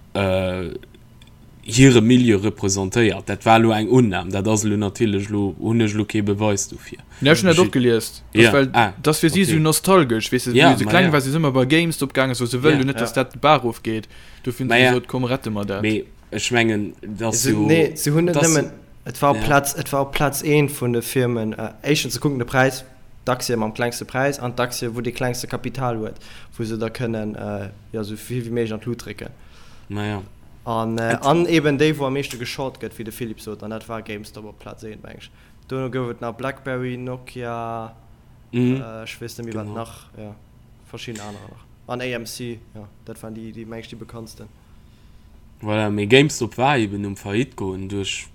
hire Milieu representéiert. Dat war elo eng Unnam, dat ass elo natierlech elo, hunn ech elo kee Beweis dofir. Ja, ech hunn dat och gelies. Ja, Well ah, dat ass fir si okay. esou nostalgesch, weess de, Ja, wéi se ma kleng ja. waren, si se ëmmer bei GameStop gaangen, so se wëllen Ja. jo net, dass dat de Bach ofgeet. Dofir hunn Ma se ja. gesot, komm, rette mer dat. Mee ech mengen, dat ass Se, jo, nee, se hunn net dat ass, nëmmen, et war op ja. Plaz, et war op Plaz eent vun de Firmen, éischtens, se kucken de Präis, d'Aktie mam klengste Präis an d'Aktie, wou dee klengste Kapital huet, wou se da kënnen, jo, esou vill wéi méiglech an d'Lut drécken. Ma ja. An, an eben déi, wou am meeschte geshort gëtt, wéi de Philippe sot, an dat war GameStop op Plaz 1, meng ech. Dono gouf et nach BlackBerry, Nokia, ech weess net méi, wat nach, jo, verschidden anerer nach. An AMC, jo, dat waren déi, déi, meng ech, déi bekanntsten. Voilà, mee GameStop war eben um Faillite goen duerch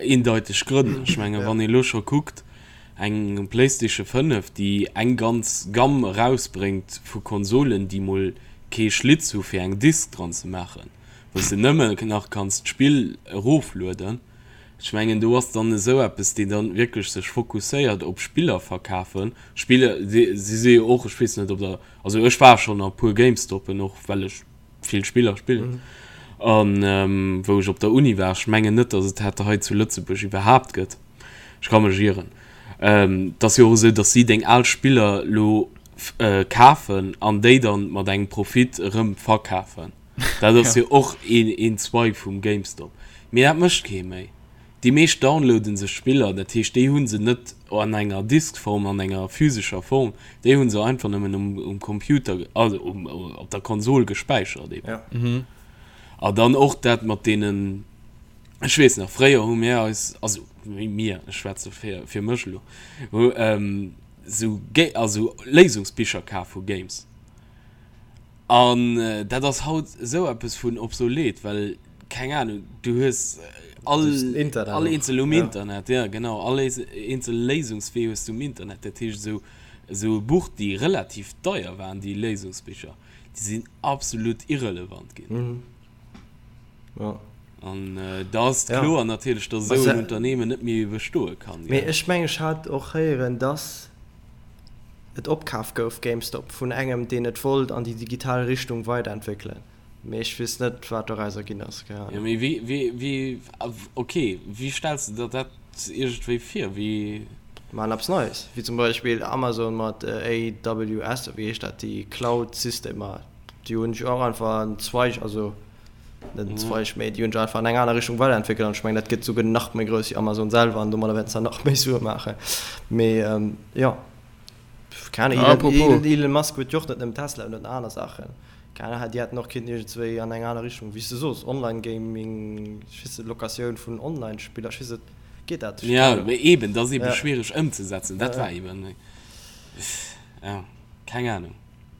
eendeiteg Grënn. Ech menge wann ee lo scho kuckt, eng PlayStation 5, déi eng ganz Gamme erausbréngt vu Konsolen, déi mol kee Schlitz hu fir eng Disk dran ze maachen, wou s de nëmme nach kanns d'Spill eroflueden. Ech mengen do ass dann esou eppes, deen dann wierklech sech fokusséiert op Spiller verkafen. Spiller, si si jo och, ech weess net ob der, also ech war schonn a puer Gamestoppen och well ech vill Spiller spillen an wou ech op der Uni war, ech mengen net, datt et dat hei zu Lëtzebuerg iwwerhaapt gëtt, ech ka mech ieren. Et ass jo och esou, datt si deng al Spiller lo kafen an déi dann mat engem Profit erëm verkafen. Dat ass jo och een Zweig vum GameStop. Mee dat mécht kee méi. Déi meescht downloaden sech Spiller, dat heescht déi hu se net an enger Diskform, an enger physescher Form, déi hu se einfach nëmmen um Computer, also op der Konsol gespäichert eben. A dann och dat mat deenen, ech weess nach, fréier hu mir eis, also mir, ech schwätze fir mech elo, hu sou also Léisungsbicher kaf vu Games. An dat ass haut esou eppes vun obsolet, well, keng Ahnung, du hues all, all eenzel um Internet, ja genau, all eenzel Léisungswee hues du um Internet. Dat heescht, esou, esou e Buch, déi relativ deier waren, déi Léisungsbicher, déi sinn absolut irrelevant ginn. An da ass et kloer natierlech, datt esou en Unternehmen net méi bestoe kann. Mee ech mengen, ech hat och héieren, datt et opkaf gouf, GameStop, vun engem, deen et wollt an déi digital Richtung weiderentwéckelen. Mee ech weess net, wat dorauser ginn ass, keng Ahnung. Jo, mee wéi, wéi, wéi, ok, wéi stells de der dat iergendwéi vir? Wéi. Maachen eppes Neies, wéi zum Beispill Amazon mat AWS, oder wéi heescht dat, déi Cloud-Systemer, déi hunn sech och einfach en Zweig, also net en Zweig, mee déi hunn sech einfach an eng aner Richtung weiderentwéckelt an ech mengen, dat gëtt souguer nach méi grouss wéi Amazon selwer an domadder wäerten se nach méi Sue maachen. Mee jo, keng Ahnung, Elon, Elon Musk huet jo och net nëmmen Tesla, en huet nach aner Saachen. Keng Ahnung, déi hätten och kinnten iergendswéi an eng aner Richtung, wéi s de sos, Online-Gaming, ech weess net, Locatioun vun Online-Spiller, ech weess net, geet dat? Ech, keng Ahnung. Jo, mee eben, dat ass ebe schwiereg ëmzesetzen, dat war eben, jo, keng Ahnung.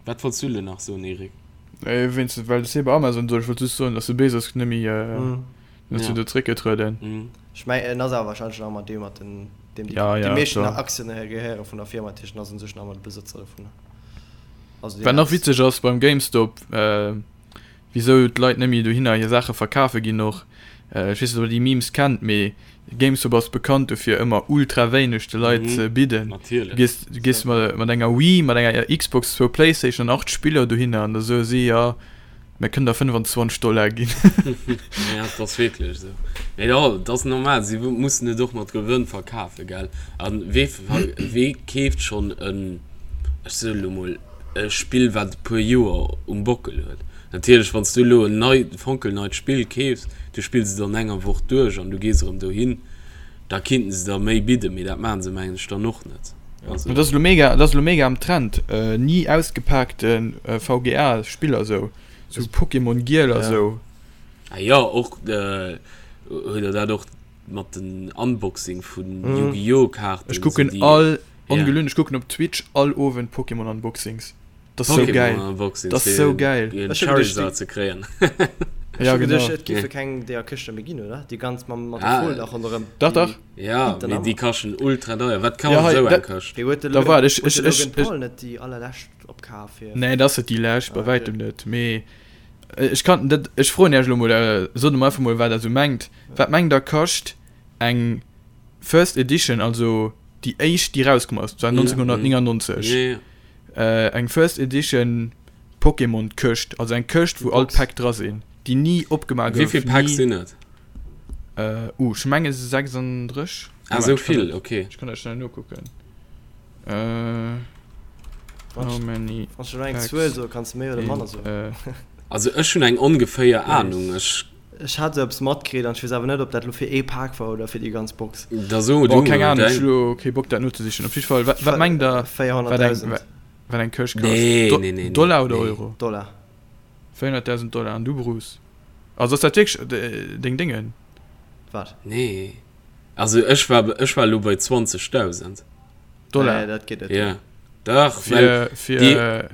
Wat wollts du elo nach soen, Eric? Nee, wéinst, well de Cyber Amazon sot, ech wollt just soen, dass de Bezos net méi, net zu do zréckgetrueden. Ech mengen, en ass awer wahrscheinlech nach ëmmer dee mat den, deem déi, Ja, déi ja, meeschten klar. Aktien gehéiere vun der Firma, dat heescht, en ass un sech nach ëmmer de Besëtzer dovunner. Also deen Wat nach witzeg ass beim GameStop, wisou d'Leit net méi dohinner hir Saache verkafe ginn och. Ech weess net, ob der déi Memes kennt, mee GameStop ass bekannt dofir, ëmmer ultra wéineg de Leit ze bidden. Natierlech. Du gees, du gees mat, mat enger Wii, mat enger Xbox, zwou Playstation an 8 Spiller dohinner an da soe si, jo, mir kënnen der 25 Dollar ginn. Ja, et ass wierklech esou. Mee jo, et ass normal, si mussen et och mat Gewënn verkafen, gell? A wee, wee keeft schonn en, ech soe lo mol, e Spill wat e puer Joer um Bockel huet. Natierlech wann s du elo en nei, fonkelneit Spill keefs, du spills et an enger Woch duerch an du gees erëm dohin, da kinnten se der méi bidden, mee dat maachen se mengen ech dann och net. Also. Dat ass elo mega, dat ass elo mega am Trend, ni ausgepaakte VGA Spiller sou, sou Pokémon Giel a sou. Ah jo, och huet der dat och mat den Unboxing vun Yu-Gi-Oh Kaarten. Ech kucken all, ongelunn, ech kucken op Twitch all Owend Pokémon Unboxings. Dat ass sou gäil. Unboxings Dat ass sou gäil. Fir en Charizard ze kréien. Ech hu geduecht, et géife keng deeër Këschte méi ginn, oder? Déi ganz mam mat der Fol nach ronderëm. Dach, dach. Ja, mee déi kaschten ultra deier. Wat kascht esou eng Këscht? Wéi huet de Da waart, ech, huet ech, de ech, Logan Paul net déi allerlescht opkaf fir. Nee, dat ass net déi lescht, bei wäitem net. Mee ech kann dat, ech froen Iech elo mol, sot emol einfach mol, wat Der esou mengt. Wat mengt Der kascht eng First Edition, also déi éischt, déi erauskomm ass, dat war 1999, eng First Edition Pokémon Këscht, also eng Këscht wou all d'Päck dra sinn, déi ni opgemaach gouf. Wéi vill Päck sinn et? Uh, ech menge 36. Ah, sou vill, ok. Ech kann dat schnell nokucken. How many Wann s du elo eng Zuel soe kanns de méi oder manner soen. Also ech hunn eng ongeféier Anung, ech. Ech hat esou eppes matkritt an ech weess awer net op dat elo fir ee Pak war oder fir déi ganz Box. Da so du mol Keng Ahnung, ech däin. hu lo kee Bock dat nozesichen. Op jiddwer Fall, wat, wat mengt der, wat eng, 400.000 wat eng Këscht kascht? Nee, Do, nee, nee, nee, Dollar oder nee. Euro? Dollar. 400.000 Dollar. An du Bruce? Also ass dat wierklech deng Déngen? Wat? Nee. Also ech war, ech war elo bei 20.000. Dollar? Nee, dat geet net. Ja. Dach, well Fir, déi, fir.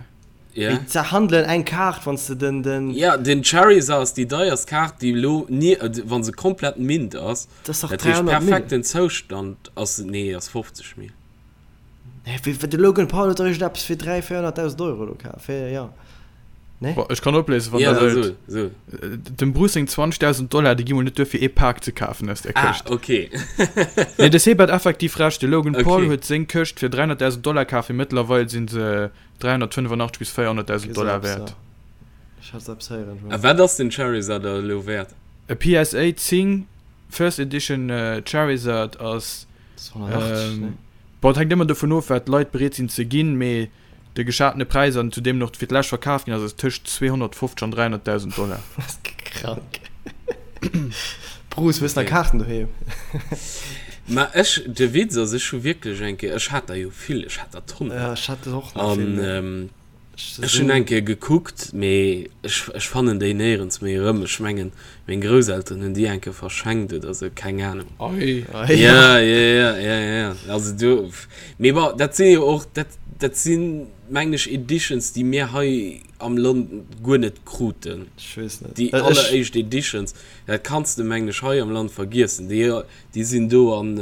Ja. Mee zerhandelen eng Kaart, wann s de den, den. Ja, den Charizard ass déi deierst Kaart, déi elo ni, wa se komplett mint ass. Dat ass dach Dat heescht 300 Mille. perfekten Zoustand ass se, nee, ass 50 Mille. Nee, wéi, de Logan Paul huet dach iergendeppes fir 300, 400.000 Euro elo kaf, fir, ja. Nee? Bon, ech kann opléisen, wann Ja, der da wëllt. so, so. Dem Bruce seng 20.000 Dollar, déi gi mol net duer fir ee Pak ze kafen aus där Ah, Këscht. okay. Nee, de Seb hat effektiv Recht, de Logan Paul Okay. huet seng Këscht fir 300.000 Dollar kaf, mee mëttlerweil si se 385 bis 400.000 Dollar wäert. A wat ass den Charizard da elo wäert? E PSA 10 First Edition Charizard ass, bon, et hänkt ëmmer dovun of, wat d'Leit bereet sinn ze ginn, mee de geschatene Präis an zu deem en och fir d'lescht verkaf ginn ass, ass tëscht 250 an 300.000 Dollar. Krank. Bruce, hues nach Kaarten doheem? Ma ech, de Witz ass, ech hu wierklech eng Kéier, ech hat der jo vill, ech hat der Tonnen. Ja, ech hat och nach vill. An ech hunn eng Kéier gekuckt, mee ech, ech fannen déi néierens méi erëm. Ech mengen, meng Grousselteren hunn déi eng Kéier verschenkt oder sou, keng Anung. Ei. Ja, ja, ja, ja, ja. Also do, mee bon, dat si jo och, dat, dat sinn, mengen ech, Editions, déi mir hei am Land guer net kruten. Ech weess net. Déi alleréischt Editions, dat kanns de, mengen ech, hei am Land vergiessen. Déi Déi sinn do an,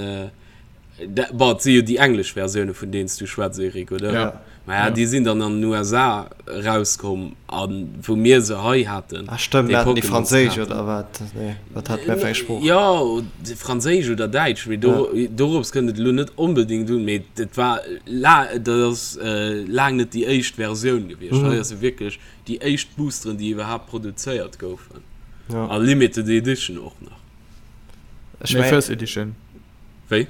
bon, et si jo déi englesch Versioune vun deenen s du schwätz, Eric, oder? Ja. Maja, déi sinn dann an den USA erauskomm a wou mir se hei haten. Ah stëmmt, mir haten déi franséisch oder wat? Nee, wat hate mir fir eng Sprooch? Jo, franséisch oder däitsch, mee do, dorops kënnt et elo net onbedéngt un, mee et war la, dat ass laang net déi éischt Versioun gewiescht. Hei ass jo wierklech déi éischt Boosteren, déi iwwerhaapt produzéiert goufen. A Limited Edition och nach. Ech nee, First Edition. Wéi?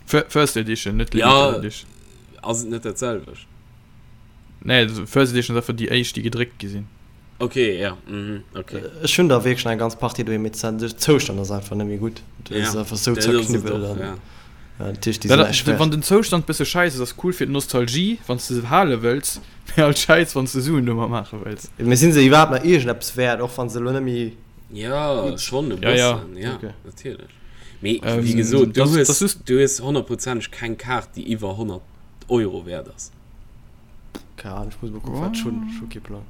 First Edition, net Limited ja, Edition. Ass et net dat selwecht? Nee, First Edition ass einfach déi éischt, déi gedréckt gi sinn. Okay, ja. Mhm, okay. Ech hunn der wierklech eng ganz Partie doheem, mee den Zoustand ass einfach net méi gutt. Dat ja, ass einfach sou zerknibbelt. An, ja. Ja, natierlech, déi sinn näischt wäert. Wann den Zoustand bësse schäiss ass, ass cool fir d'Nostalgie, wann s de se hale wëlls, mee alt schäiss, wann s de Suen domat maache wëlls. Mee sinn se iwwerhaapt nach iergendeppes wäert, och wann se elo net méi. Ja, schon e Ja, ja. bëssen, ja, Okay. natierlech. Mee Ähm, wéi gesot, du das, hues, das just, du hues honnertprozenteg keng Kaart, déi iwwer 100 Euro wäert ass. Keine Ahnung, ich muss mal gucken, wat ech hunn. Ech hu kee Plang.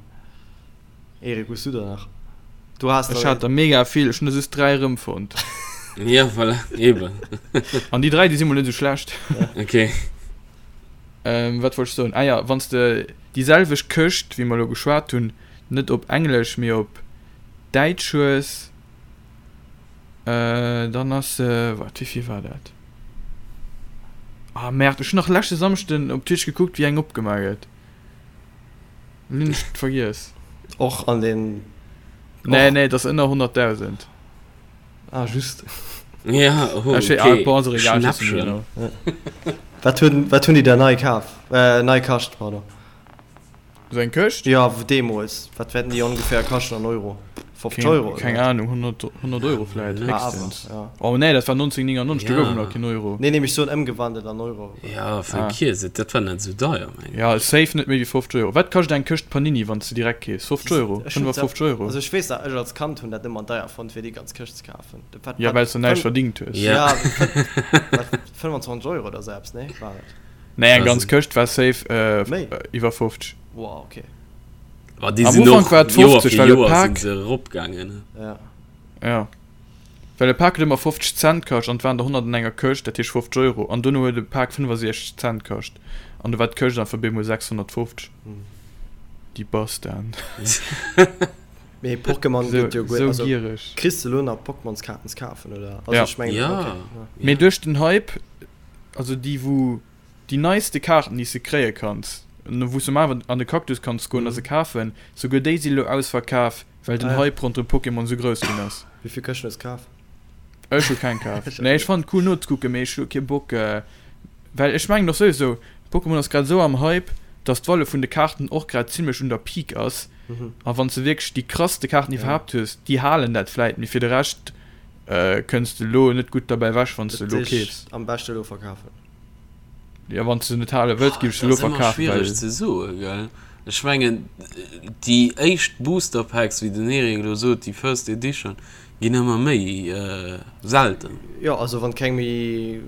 Erik, hues du der nach? Du has ech der. hat der mega vill, ech hunn der just 3 erëmfonnt. Ja, voilà, eben. An déi 3, déi si mol net esou schlecht. Okay. Ähm, wat wollt ech soen? Ah ja, wann s de déi selwecht Këscht, wéi mer elo geschwat hunn, net op Englesch, mee op Däitsch hues. Dann ass se, waart, wéivill war dat? Ah merde, ech hunn nach leschte Samschden op Twitch gekuckt, wéi eng opgemaach gëtt. Lo hunn ech et vergiess. Och an den. Nee, nee, et ass ënner 100.000. Ah, just. Ja, oh, okay. Ah, bon, ass och egal, ech weess net méi genau. Wat hunn, wat hunn déi da nei kaf, äh, nei kascht, pardon? Sou eng Këscht? Jo, deemools. Wat wäerten déi ongeféier kaschten an Euro? 50 Euro? Keng, keng Ahnung, 100, 100 Euro vläit, héchstens. Ja. Oh nee, dat war 1999, do gouf et nach keen Euro. Nee, nee, mee ech soen ëmgewandelt an Euro. Ja, vergiess et, dat war net esou deier, mengen ech. Ja, safe net méi wéi 50 Euro. Wat kascht eng Këscht Panini, wann s de direkt keefs? 50 Euro? 55 Euro? Also ech weess nach, ech als Kand hunn dat ëmmer deier fonnt, fir déi ganz Këscht ze kafen. Dat war, Ja, well s de näischt verdingt hues. Ja, 25 Euro oder sou eppes, nee, war et? Nee, eng ganz Këscht war safe iwwer 50. Wow, okay. Am Ufank war et 50, well e Pak. Sinn se eropgaangen. Ja. Ja. Well e Pak huet ëmmer 50 Cent kascht an et waren der 100 an enger Këscht, dat heescht 50 Euro. An dono huet e Pak 65 Cent kascht an du war d'Këscht einfach bemol 650. Déi Bastarden. Mee Pokémon gëtt jo guer, also giereg. Kriss de lo nach Pokémonskaarten ze kafen oder? Also ja. Ech mengen, ja. Okay, ja. Mee duerch den Hype, also déi wou déi neiste Kaarten déi s de kréie kanns, wou s de awer an de Cactus kanns goen a se kafen, souguer déi si lo ausverkaf, well den Ah ja. Hype ronderëm Pokémon sou grouss ginn ass. Wéi vill Këschten hues de kaf? Ech hu keng kaf. Nee, ech fannen et cool nozekucken, mee ech hu kee Bock, well ech mengen och souwisou, Pokémon ass grad esou am Hype, dass d'Valeur vun de Kaarten och grad zimlech un der Peak ass. A wann s de wierklech déi krasste Kaarten iwwerhaapt hues, déi halen dat vläit, mee fir de Rescht kënns de elo net gutt derbäi ewech, wann s de elo keefs. Am beschte elo verkafen. Jo, wann s de se net hale wëlls, géif ech se elo Dat ass ëmmer verkafen, schwiereg well. ze soen, gell? Ech mengen, déi éischt Booster Packs, wéi den Eric elo sot, déi First Edition, ginn ëmmer méi selten. Jo, also wann keng méi,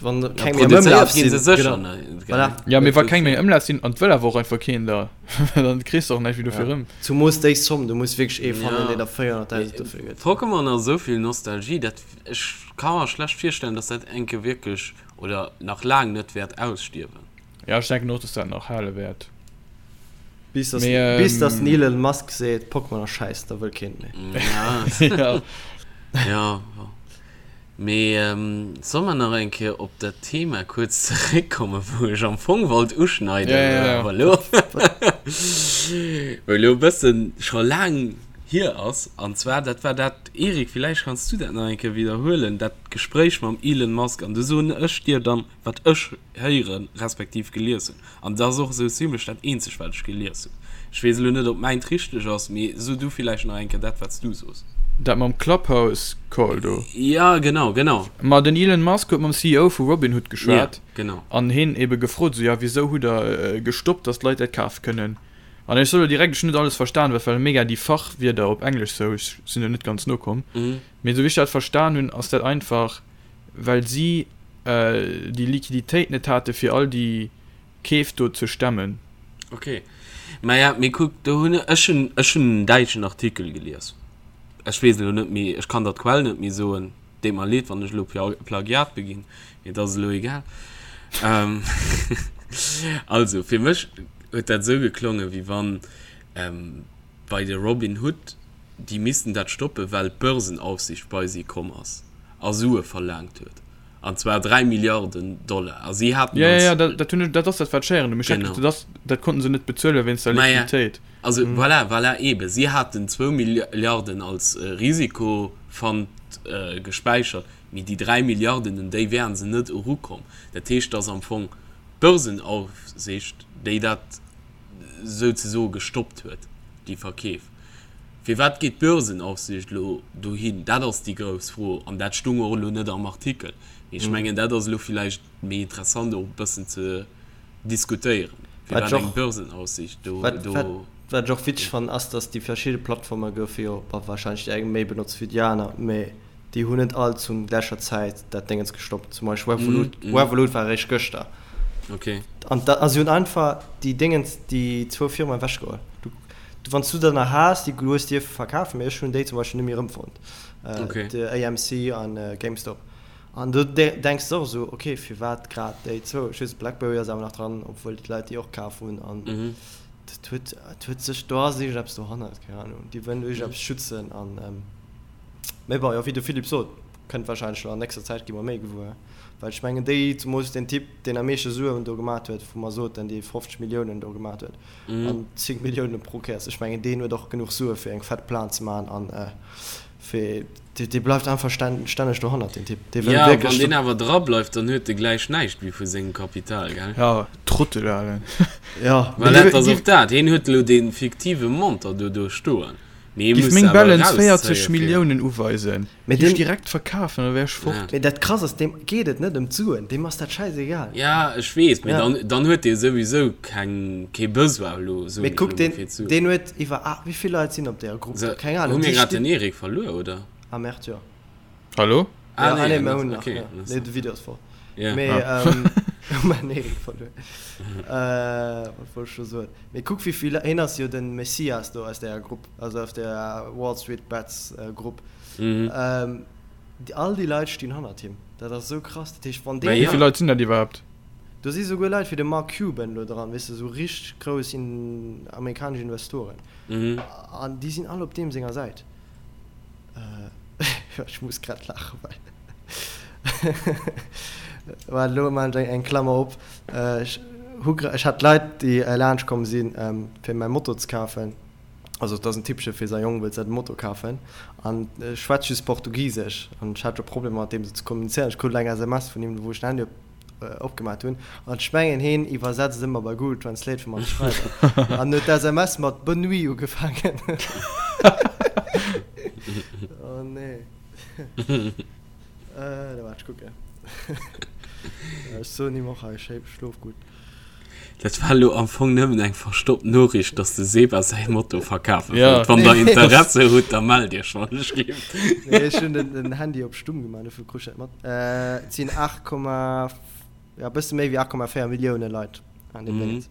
wann Ja, keng méi am Ëmlaf produzéiert ginn sinn, se sécher genau. net, Voilà. gell? Ja, mee wa keng méi am Ëmlaf sinn, an et wëll awer och einfach keen der, dann kriss de och näischt méi dofir Ja. erëm. Zumoos déi Zomm, du muss wierklech ee fannen, Ja. deen der 400.000 dofir gëtt. Pokémon ass esou vill Nostalgie, dat ech ka mer schlecht virstellen, dass dat enke wierklech oder nach laang net wäert ausstierwen. Ja, ech denken och, dass dat nach hale wäert. Bis dass, Mee, ähm, bis dass den Elon Musk seet, Pokémon ass schäiss, da wëll keen et méi. Ja. Ja. Ja, bon. Mee solle mer nach eng Kéier op dat Thema kuerz zeréckkommen, wou ech am Fong wollt uschneiden, Ja, ja, ja. awer elo, wou elo e bëssen scho laang hier ass. An zwar, dat war dat, Eric, villäicht kanns du dat nach eng Kéier widderhuelen, dat Gespréich mam Elon Musk. An du soen ech dir dann, wat ech héieren, respektiv gelies hunn. An dat ass och esou zimlech dat eenzegt, wat ech gelies hunn. Ech weess elo net, ob mäint richteg ass, mee so du villäicht nach eng Kéier dat, wat s du soos. Dat mam Clubhouse-Call do? Ja, genau, genau. Ma den Elon Musk huet mam CEO vu Robinhood geschwat Ja, genau. an hien ebe gefrot, esou, ja, wisou hutt der gestoppt, datt d'Leit dat kafe kënnen? An ech soe lo direkt, ech hunn net alles verstan, well et ware mega déi Fachwierder op Englesch sou, ech sinn do net ganz nokomm. Mee esou wéi ech dat verstan hunn, ass dat einfach, well si déi Liquiditéit net hate fir all déi Keef do ze stemmen. Ok, maja, mee kuck, do hunn ech hunn ech hunn en däitschen Artikel gelies, ech weess elo net méi, ech kann der d'Quell net méi soen, deet mer leed, wann ech elo Plagiat beginn, mee et ass elo egal. Also, fir mech huet dat esou geklongen, wéi wann bei de Robin Hood, déi missten dat stoppen, well d'Börsenaufsicht bei si komm ass a Sue verlaangt huet, an zwar 3 Milliarden Dollar, a si haten Ja, ja, als. ja, dat, dat hunn ech, dat ass dat, wat ech héieren hunn. Mee ech hat Genau. geduecht, dat ass, dat konnten se net bezuelen wéinst der Maja, Liquiditéit. also voilà, voilà, eebe, si haten zwou Milliarden als Risikofund gespäichert, mee déi 3 Milliarden, un déi wären se net erukomm. Dat heescht, dass am Fong d'Börsenaufsicht, déi dat souzesoe gestoppt huet, déi Verkeef. Firwat geet d'Börsenaufsicht elo dohin? Dat ass déi grouss Fro an dat stung och elo net am Artikel. Mee ech mengen, dat ass elo villäicht méi interessant och e bëssen ze diskutéieren, firwat eng Börsenaufsicht do. Wat ech och witzeg fannen, ass, datt déi verschidde Plattforme goufe jo, bon, warscheinlech déi eng méi benotzt wéi déi aner, mee déi hunn net all zum gläicher Zäit dat Déngens gestoppt. Zum Beispill Revolut, mm, mm. Revolut war eréischt gëschter. Okay. An da, also si hunn einfach déi Déngens, déi zwou Firmen ewechgeholl. Du, du, wann s du der nach has, déi du hues dierfe verkafen, mee ech hunn déi zum Beispill net méi erëmfonnt. Äh, okay. De AMC an äh, GameStop. An du de denks och esou, okay, firwat grad déi zwou? Ech weess, Blackberry ass awer nach dran, obwuel d'Leit déi och kaf hunn. An mm. dat huet, dat huet sech, do ass iergendeppes dohannert, keng Ahnung. Déi wëllen iergendeppes schützen an. Ähm, Mee bon, jo, wéi de Philippe sot, kënnt wahrscheinlech elo an nächster Zäit gi mer méi gewuer. Well ech mengen déi, zemools deen Typ, deen am meeschte Suen do gemat huet, wou mer soten, dee 50 Milliounen do gemat huet an 10 Milliounen pro Kéiers, ech mengen deen huet och genuch Sue fir eng fett Plan ze maachen an fir, dee bleift einfach stänneg dohannert, deen Typ. Dee wëll wierklech. Jo, wann deen awer dra bleift, dann huet e gläich näischt méi vu sengem Kapital, gell? Jo, Trottel, Alen. Jo. Well dat ass och dat, hien huet elo dee fiktive Montant do do stoen. Giff meng Balance 40 Milliounen uweisen, géif ech direkt verkafen an da wär ech fort. Mee dat krass ass, deem geet et net ëm d'Suen, deem ass dat schäisegal. Ja ech weess, mee dann, dann huet dee souwisou keng, kee Besoin elo, soen ech elo mol, fir d'Suen. Mee kuck, deen huet iwwer, wéi vill Leit sinn op deeër Grupp do? Keng Ahnung. Hu mir grad den Eric verluer, oder? Ah merde, jo. Hallo? Ah, ja, nee, ah, nee, mir hunn nach, okay, ja. Nee, de Video ass voll. Yeah. Mee, ah. ähm, hu mir Erik verluer. Äh, wat wollt ech scho soen? Mee kuck, wéi vill, hien ass jo den Messias do aus der Grupp, also aus der Wall Street Bets äh, Grupp. Mhm. Ähm, die, all déi Leit stinn hannert him. Dat ass esou krass. Dat heescht, wann deen. Wéi vill Leit sinn dat iwwerhaapt? Do si souguer Leit wéi de Mark Cuban do dran, weess de, esou richteg grouss in, amerikanesch Investoren. Mhm. An déi sinn all op deem senger Säit. Ech muss grad laachen, well Waart, elo maachen ech eng Klammer op. Ech hu ech hat Leit, déi laanscht komm sinn, fir mäi Moto ze kafen. Also et ass en Typpche fir säi Jong wëllt säi Moto kafen an e schwätzt just Portugisesch an ech hat scho Problemer mat deem sou ze kommunizéieren. Ech krut elo eng SMS vun him, wou ech den Handy op opgemaat hunn an ech mengen heen iwwersetzt ëmmer bei Google Translate fir mat ze schreiwen an huet d'SMS mat Bonne nuit ugefaangen. Oh nee. Äh, da waart ech kucken. Ech soen him och hei schlof gutt. Dat war elo am Fong nëmmen eng verstoppt Noriicht, dass de Seba säi Moto verkafe wëllt. Wann der Interesse hutt, da mellt iech wann ech gleeft. Nee, ech hunn den Handy op stumm gemaach, dofir krut ech dat mat. Et sinn 8, jo, e bësse méi wéi 8,4 Millioune Leit an deem Déngens.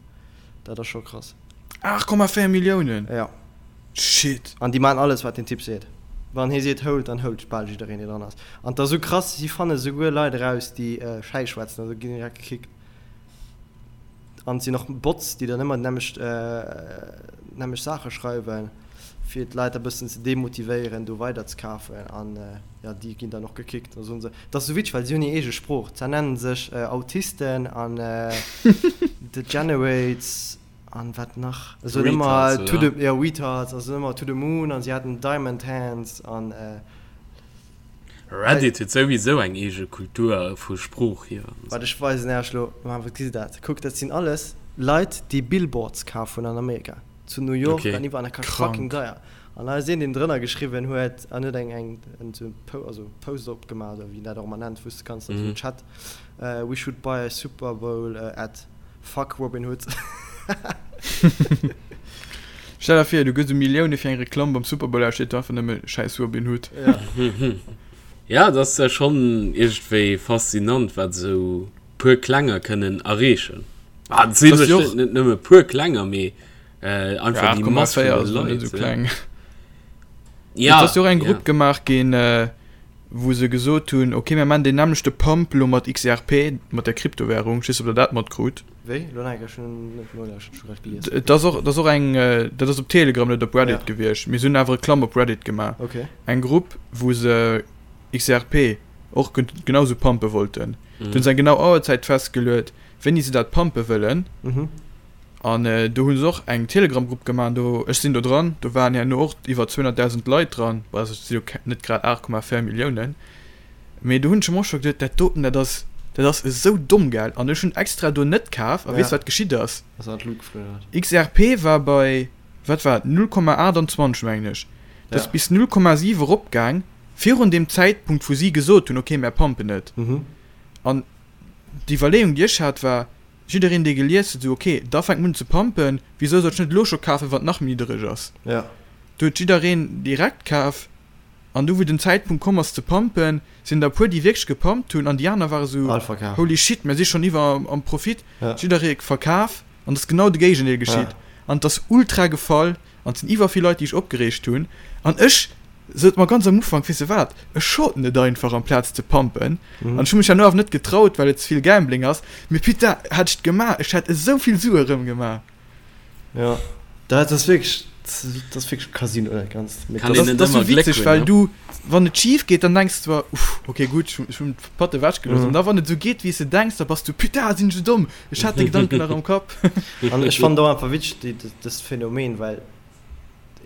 Dat ass scho krass. 8,4 Milliounen? Jo. Shit. An déi maachen alles, wat den Typ seet. Wann hie seet hold, dann hold bal jiddereen, dee dran ass. An et ass esou krass, si fanne souguer Leit eraus, déi Schäiss schwätzen, also ginn direkt gekickt. An et sinn och Bots, déi dann ëmmer déi nämmlecht, nämmlecht Saache schreiwen, fir d'Leit e bëssen ze demotivéieren, do weider ze kafen. An jo, déi ginn dann och gekickt. Da soen se, et ass esou witzeg, well si hunn hir eege Sprooch. Zwar nennen se sech Autisten an Degenerates an wat nach? Se soen ëmmer Retards, to the, jo, Retards a se soen ëmmer to the moon an si haten Diamond Hands an. Reddit huet souwisou eng eege Kultur vu Sprooch hier. Waart ech weisen Äech lo, ma wat gesitt dat? Kuck dat sinn alles Leit déi Billboards kaf hunn an Amerika, zu New York an iwwerall, dat kascht fucking deier. An hei ass een deen drënner geschriwwen huet an huet eng eng en also Post opgemaach oder wéi een dat och ëmmer nennt wou s de kanns an esou en Chat, We should buy a Super Bowl ad, fuck Robin Hood. Stell der vir, du gëss u Millioune fir eng Reklamm beim Super Bowl a steet do einfach nëmme Schäiss Robin Hood. Ja, et ass schonn iergendwéi faszinant, wat esou puer Klenger kënnen erreechen. Ah, et si bestëmmt net nëmme puer Klenger, mee einfach déi Mass vun de Leit. Esou kleng. Ja, et ass jo och eng Grupp gemaach ginn, wou se gesot hunn, ok, mir maachen deen nämmlechte Pump elo mat XRP, mat der Kryptowärung. Ech weess net, ob der dat matkrut. Wéi? Lo nach eng Kéier, ech hunn net nolauschtert, ech hu grad gelies. Et ass och, et ass och eng, dat ass op Telegram, net op Reddit gewiescht, mee se hunn awer Reklamm op Reddit gemaach. Okay. Eng Grupp, wou se XRP och genau sou pumpe wollten. Do hunn se eng genau Auerzäit festgeluet, wéini se dat pumpe wëllen. An do hu se och eng Telegram-Grupp gemaach, an do, ech sinn do dran, do waren herno och iwwer 200.000 Leit dran, bon, also et si jo net grad 8,4 Milliounen. Mee do hunn ech mer och scho geduet, dat doten, dat ass, dat ass esou domm, gell? An ech hunn extra do net kaf. A weess wat geschitt ass? Ass an d'Lut geflunn, oder wat? XRP war bei, wat war et, 0,28 mengen ech. Dat ass bis 0,7 eropgaang, virun deem Zäitpunkt, wou si gesot hunn, okay, mär pumpen et. An d'Iwwerleeung, déi ech hat, war, jiddereen, dee gelies huet, esou, okay, da fänkt mer un ze pumpen, wisou soll ech net elo scho kafen, wann et nach méi niddereg ass? Do huet jiddereen direkt kaf. An du wou den Zäitpunkt komm ass ze pumpen, sinn der e puer déi wierklech gepumpt hunn an déi aner ware sou, holy shit, mir si schonn iwwer am Profit, jidderee verkaf an et ass genau de Géigendeel geschitt an et ass ultra gefall an et sinn iwwer vill Leit déi sech opgereegt hunn an ech sot mer ganz am Ufank, weess de wat, ech shorten et einfach amplaz ze pumpen an ech hu mech herno awer net getraut well et ze vill Gambling ass, mee putain hätt ech et gemaach, ech hätt esou vill Sue rëm gemaach. Jo, dat ass wierklech. Dat ass wierklech Casino dat Ganzt. Kann een net Dat ass ëmmer sou Gléck witzeg, hunn, well ne? du, wann et schif geet, dann denks de zwar, uff, ok gutt, ech hunn, ech hunn d'Patt ewech gelooss. Mhm. An da wann et sou geet, wéi s de denks, da bass du, putain, sinn ech sou domm, ech hat de Gedanken nach am Kapp. An ech fannen et och einfach witzeg, déi, dëst Phänomen, well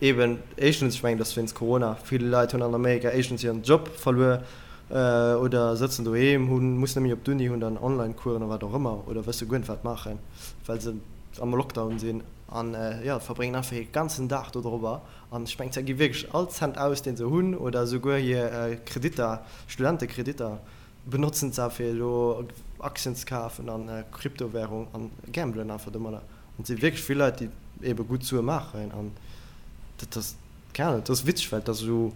eben éischtens, ech mengen, dass wéinst Corona vill Leit hunn an Amerika éischtens hiren Job verluer oder sëtzen doheem, hunn, mussen net méi op d'Uni, hunn dann Online-Coursen oder wat och ëmmer oder wësse guer net wat maachen, well se am Lockdown sinn. An jo, verbréngen einfach hir ganzen Dag do dorobber. An ech mengen, se gi wierklech all Cent aus, deen se hunn, oder esouguer hir Kreditter, Studentekreditter benotzen se fir elo Aktien ze kafen an Kryptowärung an gambelen einfach domadder. An et si wierklech vill Leit, déi ebe gutt Sue maachen. An dat ass, keng Ahnung, dat ass witzeg, well et ass esou,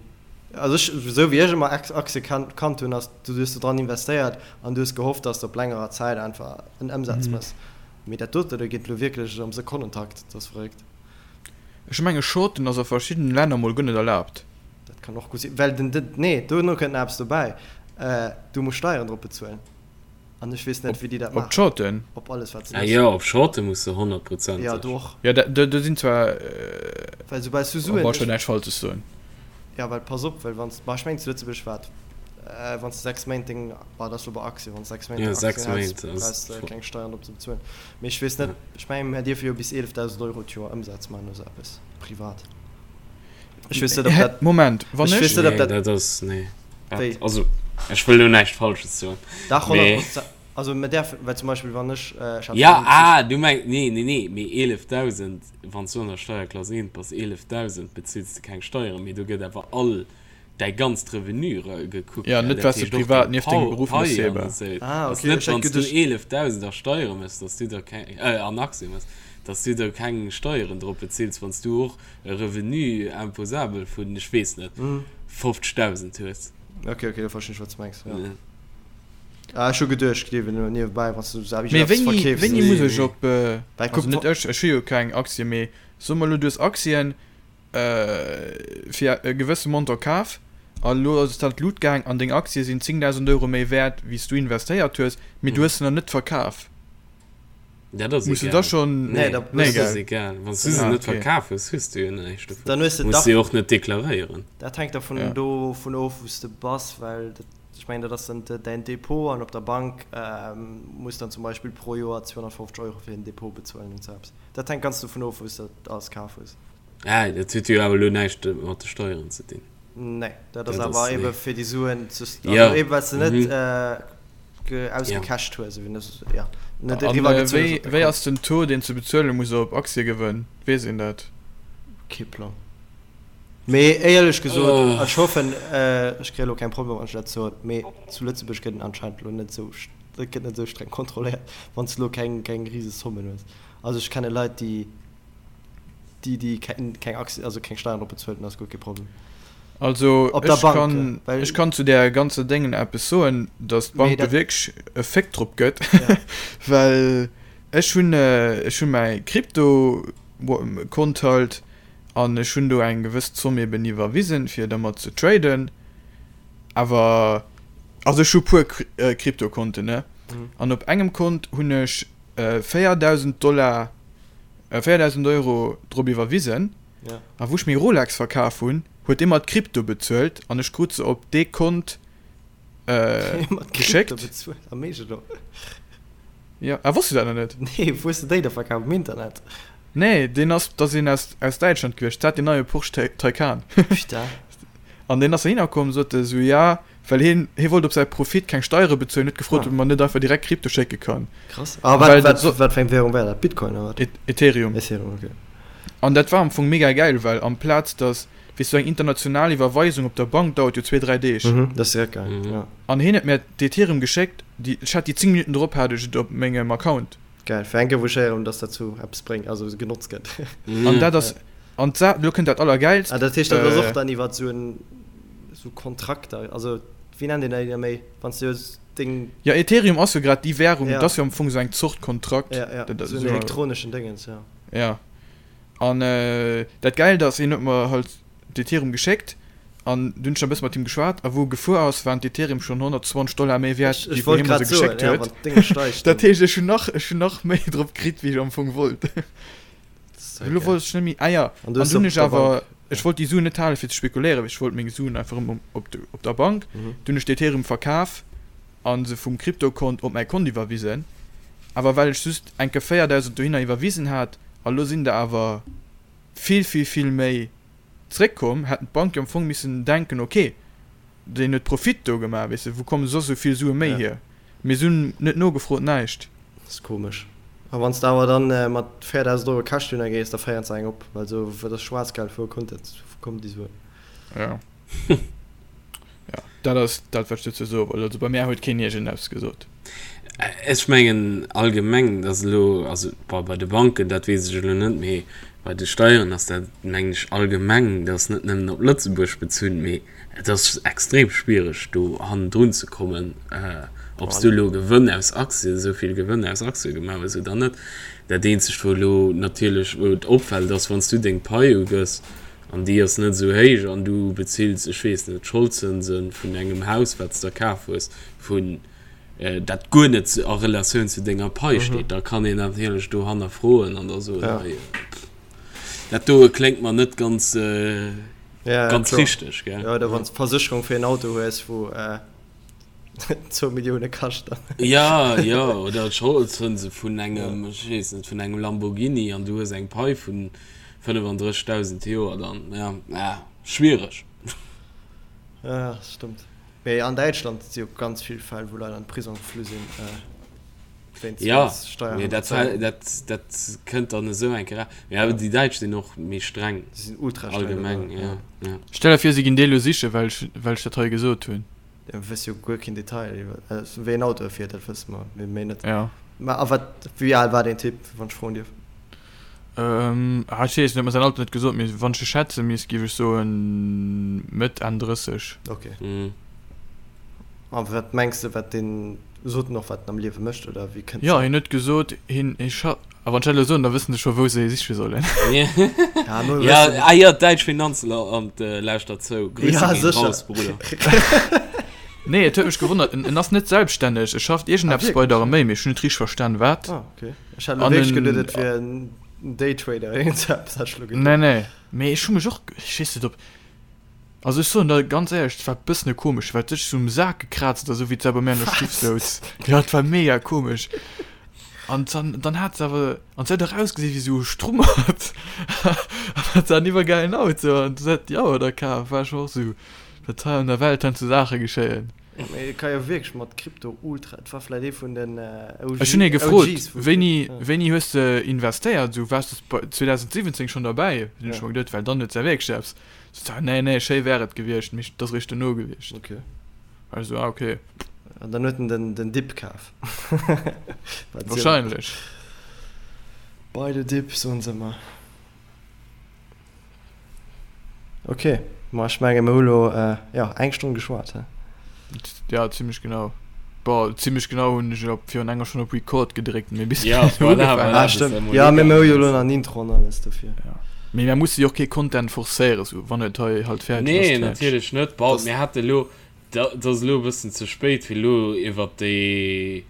also ech, esou wéi ech ëmmer Aktie kannt hunn, ass, du hues do dran investéiert an du hues gehofft, dass de op längerer Zäit einfach en Ëmsaz méchs. Mee dat dote do geet elo wierklech am Sekonnentakt, dat ass verréckt. Ech menge Shorten ass a verschiddenen Länner mol guer net erlaabt. Dat kann och gutt sinn, well den, den, nee, dono kënnt nach eppes dobäi, du muss Steieren drop bezuelen an ech weess net, wéi déi dat Op maachen. d'Shorten? Op alles wat se Ah méchs. jo, op Shorte muss de 100 Prozent Jo, sech. do och. Jo, dat, do, do sinn zwar, Well soubal s du oh Suen, boah, ech ech, wëll näischt Falsches soen. jo, well pass op, well wann s, ma ech mengen zu Lëtzebuerg war et, wann s de 6 Méint deng, bah, dat ass lo bei Aktien, wann s 6 Méint Jo, deng 6 Aktien häls, Méint ass brauchs de keng Steieren drop ze bezuelen. Mee ech weess net, ech mengen, mir dierfe jo bis 11.000 Euro d'Joer Ëmsaz maachen oder sou eppes, privat. Ech weess net, ob dat. Moment, wann Ech ech. weess net, ob Nee, dat. dat ass, nee. Dat, Wéi? also, ech wëll lo näischt Falsches soen, Dach, mee. 100 Prozent. Also, mir däerfen, well zum Beispill, wann ech, ech hat Ja, 50. ah, du mengs, nee, nee, nee, mee 11.000, wann s du an der Steierklass 1 bass, 11.000 bezills de keng Steieren, mee do gëtt awer all däi ganzt Revenu gekuckt, Ja, gell? net Dat wat s de heescht och privat deng nieft dengem Pau, Beruff méchs, Pai an eben. esou. Ah, Ass okay, net, ech hat wann s du geduecht. 11.000 a Steiere méchs, dass du da keng, äh, an Aktie méchs, dass du da keng Steieren drop bezills, wann s du och e Revenu imposable vun, ech weess net, 50.000 hues. Okay, okay, da verstinn ech, wat s du mengs, jo. Ah, ech hu geduecht, gleewen elo niewebäi, wann s du esou Mee eppes wéini, verkeefs, wéini dass. muss Nee, ech nee. op, äh, Well also kuck, net ech, ech hu jo keng Aktie, mee soe mer elo, du hues Aktien, fir e gewësse Montant kaf a elo ass et an d'Lut gaang an deng Aktie sinn 10.000 Euro méi wäert wéi s du investéiert hues, mee du hues se nach net verkaf. Dat ass Muss du da egal. schonn. Nee, Nee, da Nee, dat ass gell? egal. Wann s du se Ah, net okay. verkaf hues, hues du jo näischt dovun. Dann hues de Muss dach. se jo och net deklaréieren. Dat hänkt dervun Ja. dovun of, wou s de bass, well dat, ech mengen, dat ass dann däin Depot an op der Bank muss dann zum Beispill pro Joer 250 Euro fir den Depot bezuelen und sou eppes. Dat hänkt ganz dovun of, wou s de dat alles kaf hues. Ah, dat huet jo awer elo näischt mat de Steieren ze dinn. Nee, dat ass Dat ass, awer ebe nee. fir déi Suen ze, also Ja, ebe well s de net mhm. ge, Ja. ausgecasht hues, ewéi net, ja, net An eriwwer gezunn hues wéi, op de wéi Kont. ass den Taux, deen s de bezuele muss op Aktiegewënn? Weess een dat? Kee Plang. Mee éierlech gesot, Oh. ech hoffen, ech kréie elo keng Problemer, wann ech dat soen, mee zu Lëtzebuerg gëtt en anscheinend elo net esou, et gëtt net esou streng kontrolléiert, wann s de elo keng, keng rise Sommen hues. Also ech kenne Leit, déi, déi, déi keng, keng Aktien, also keng Steieren drop bezuelt hunn, ass guer kee Problem. Also Op der ech Bank, kann, well. ech kann zu där ganzer Déngen eppes soen, datt Mee d'Bank do dat. wierklech e Féck drop gëtt, Ja. well ech hunn, ech hunn mäi Krypto-Kont halt an ech hunn do eng gewëss Zomm eben iwwerwisen, fir dermat ze traden. Awer, also ech hu puer Krypto-Konten, ne, an op engem Kont hunn ech 4.000 Dollar, 4.000 Euro drop iwwerwisen. Ja. A wou ech meng Rolex verkaf hunn, huet dee mer d'Krypto bezuelt an ech krut se op dee Kont Mat Krypto geschéckt. bezuelt? Am Eescht elo? Ja, ah, wosst du dat nach net? Nee, wou hues de déi da verkaf? Um Internet? Nee, deen ass, dat ass een aus, aus Däitschland gewiescht, dat hat deen neie Porsche Taycan. Putain. An deen ass heihinner komm, sot e sou, ja, well hien, hie wollt op säi Profit keng Steiere bezuelen, huet gefrot, Ah. ob e mer net einfach direkt Krypto schécke kann. Krass. A wat, Well wat, so, wat fir eng Währung war dat? Bitcoin oder wat? E Ethereum. Ethereum, okay. An dat war am Fong mega gäil, well amplaz dass, weess du, eng international Iwwerweisung op der Bank dauert jo zwee, dräi Deeg. Mhm, dat ass direkt gaang, Mhm. ja. An hien huet mir d'Ethereum geschéckt, déi, ech hat déi 10 Minutten drop hat ech et op mengem Account. Geil, fir eng Kéier wou ech héieren, dass dat zu eppes bréngt, also genotzt gëtt. An Mhm. dat ass, an d'Sa, lo kënnt dat Allergäilst, Ah, dat heescht, dat ass och äh, dann iwwer esou en, esou Kontrakter, also wéi nennt een dat da méi, wann s du deng. Ja, Ethereum ass jo grad déi Währung, Ja. dat ass jo am Fong esou eng Zort Kontrakt. Ja, ja, Dat ass esou en jo, elektroneschen Déngens, ja. ja. An dat Gäilt ass, hien huet mer halt d'Ethereum geschéckt an dunn hunn ech nach e bësse mat him geschwat a wou e gefuer ass, waren d'Ethereum schonn 120 Dollar méi wäert, Ech, wéi ech wou wollt hie mer grad se soen, geschéckt ja, huet. wann d'Dénge steigt, Dat dann. heescht, ech hunn nach, ech hunn nach méi drop kritt, wéi ech am Fong wollt. Elo wollt ech net méi, ah jo, an du hunn ech awer, ech wollt déi Suen net halen fir ze spekuléieren, ech wollt meng Suen einfach erëm op op der Bank. Du hunn ech d'Ethereum verkaf a se vum Kryptokont op mäi Kont iwwerwisen, awer well ech just eng Kéier 4.000 dohinner iwwerwisen hat a lo sinn der awer vill vill vill méi zréckkomm, hätten d'Bank jo am Fong missen denken, ok, deen huet Profit do gemaach, weess de, wou komme soss esou vill Sue méi hier? Mee se hunn net nogefrot, näischt. Dat ass komesch. A wann s de awer dann mat 4.000 Euro Cash dohinner gees, da féieren se eng op, well esou, dat ass Schwaarzgeld, wou kënnt dat, wou kommen déi Suen? Jo. Jo, dat ass dat, wat ech dozou soe wollt. Also bei mär huet keen iergendeppes gesot. Ech mengen allgemeng, datt elo, also bon, bei de Banken, dat weess ech elo net, mee bei de Steieren ass dat, mengen ech, allgemeng, dat ass net nëmmen op Lëtzebuerg bezunn, mee Et ass extrem schwiereg do hannendrun ze kommen, ob s du elo Gewënn aus Aktien, esou vill Gewënn aus Aktie gemaach hues oder net. Dat eenzegt wou elo natierlech, wou et opfält, ass wann s du deng Pai ugëss an déi ass net esou héich an du bezills, ech weess net, d'Scholdzënse vun engem Haus wat s der kaf hues, vun dat guer net a Relatioun zu denger Pai steet, da kann een natierlech do hannerfroen an da soen, hei, dat doe kléngt mer net ganz. Ja, ganz klar. richteg, gell? Ja, oder wann du Versécherung fir en Auto hues, wou äh, 2 Millioune kascht. Dann. Ja, ja, oder d'Scholdzënse vun engem, ech weess net, vun engem Lamborghini an du hues eng Pai vun 35.000 d'Joer dann, ja, ah, schwiereg. Ja, das stimmt. Mee an Däitschland si jo ganz vill Fäll, wou Leit an de Prisong geflu sinn. Äh, Ja, mee dat, dat, dat kënnt dann esou eng Kéier. Mee awer déi Däitsch sinn och méi streng. Déi sinn ultra streng. Allgemeng, ja, ja. Stell der vir, si ginn déi elo sichen, well ech, well ech dat hei gesot hunn. Ja, mir wësse jo guer keen Detail iwwer, also wéi en Auto e fiert, dat wësse mer, mee méi net. Ja. Mä a wat, wéi al war deen Typ, wann ech froen dierf? Ähm, ah, ech weess net, huet mer säin Alter net gesot, mee wann ech e schätze misst, géif ech soen Mëtt, Enn 30. Ok. A wat mengs de, wat deen, sot en och, wat en am Liewe mécht, oder wéi kënnt Jo, hien huet gesot, hien, hie scha, a wann ech dat elo soen, da wëssen se scho, wou se hie siche sollen. Ja, mir Ja, wëssen. ah jo, d'däitsch Finanzamt lauschtert zou. Grüße Ja, ginn sécher. raus, Bruder. Nee, et huet mech gewonnert, en, en ass net selbststänneg, e schafft Ah, iergendeppes bei der wierklech? Arméi, mee ech hunn net richteg verstan, wat. Ah, okay. Ech hat elo An wierklech en, geduet, et wier en Daytrader, iergend sou eppes hat ech elo nee, geduet. nee, mee ech hu mech och, ech weess net, ob. Also ech soen der ganz éierlech, et war bëssen e komesch, well et sech sou um Sak gekraazt huet a sou wéi d'Sau bei mir an der Stuff souz. Jo, et war mega komesch. An dann, dann hat se awer, an se huet och ausgesi wéi sou e Strummert. An hat se en iwwergäilen Auto an se huet déi Auer da kaf. War ech och sou, wat hei an der Welt heiansdo Saache geschéien. Ja, mee et ka jo wierklech mat Krypto ultra, et war vläit ee vun den OG, Ech hunn hie gefrot, OGs vu wéini, Krypto, ja. wéini hues de investéiert, sou waars de bei 2017 schonn derbäi? Hunn ech Ja. mer geduet, well dann huet se ja wierklech eppes. So, nee, nee, schéi wär et gewiescht, mee et ass eréischt dono gewiescht. Okay. War ech sou, ah, okay. An dann huet en den, den Dip kaf. Wat Wahrscheinlech. Buy the dip, soen se ëmmer. Okay, ma ech menge mir hu lo, jo, eng Stonn geschwat, he? Ja, zimmlech genau. Bon, zimmlech genau hunn ech op virun enger Stonn op Record gedréckt, mee bis Ja, voilà, voilà, Ah, stëmmt. Ja, mee mir hu jo elo nach en Intro an alles dofir. Ja. Mee mir musse jo och kee Content forcéieren, sou wann et hei halt fäerdeg ass, Nee, fäerdeg. natierlech net. Bon, Das mir hate lo, dat ass elo e bëssen ze spéit, fir elo iwwert déi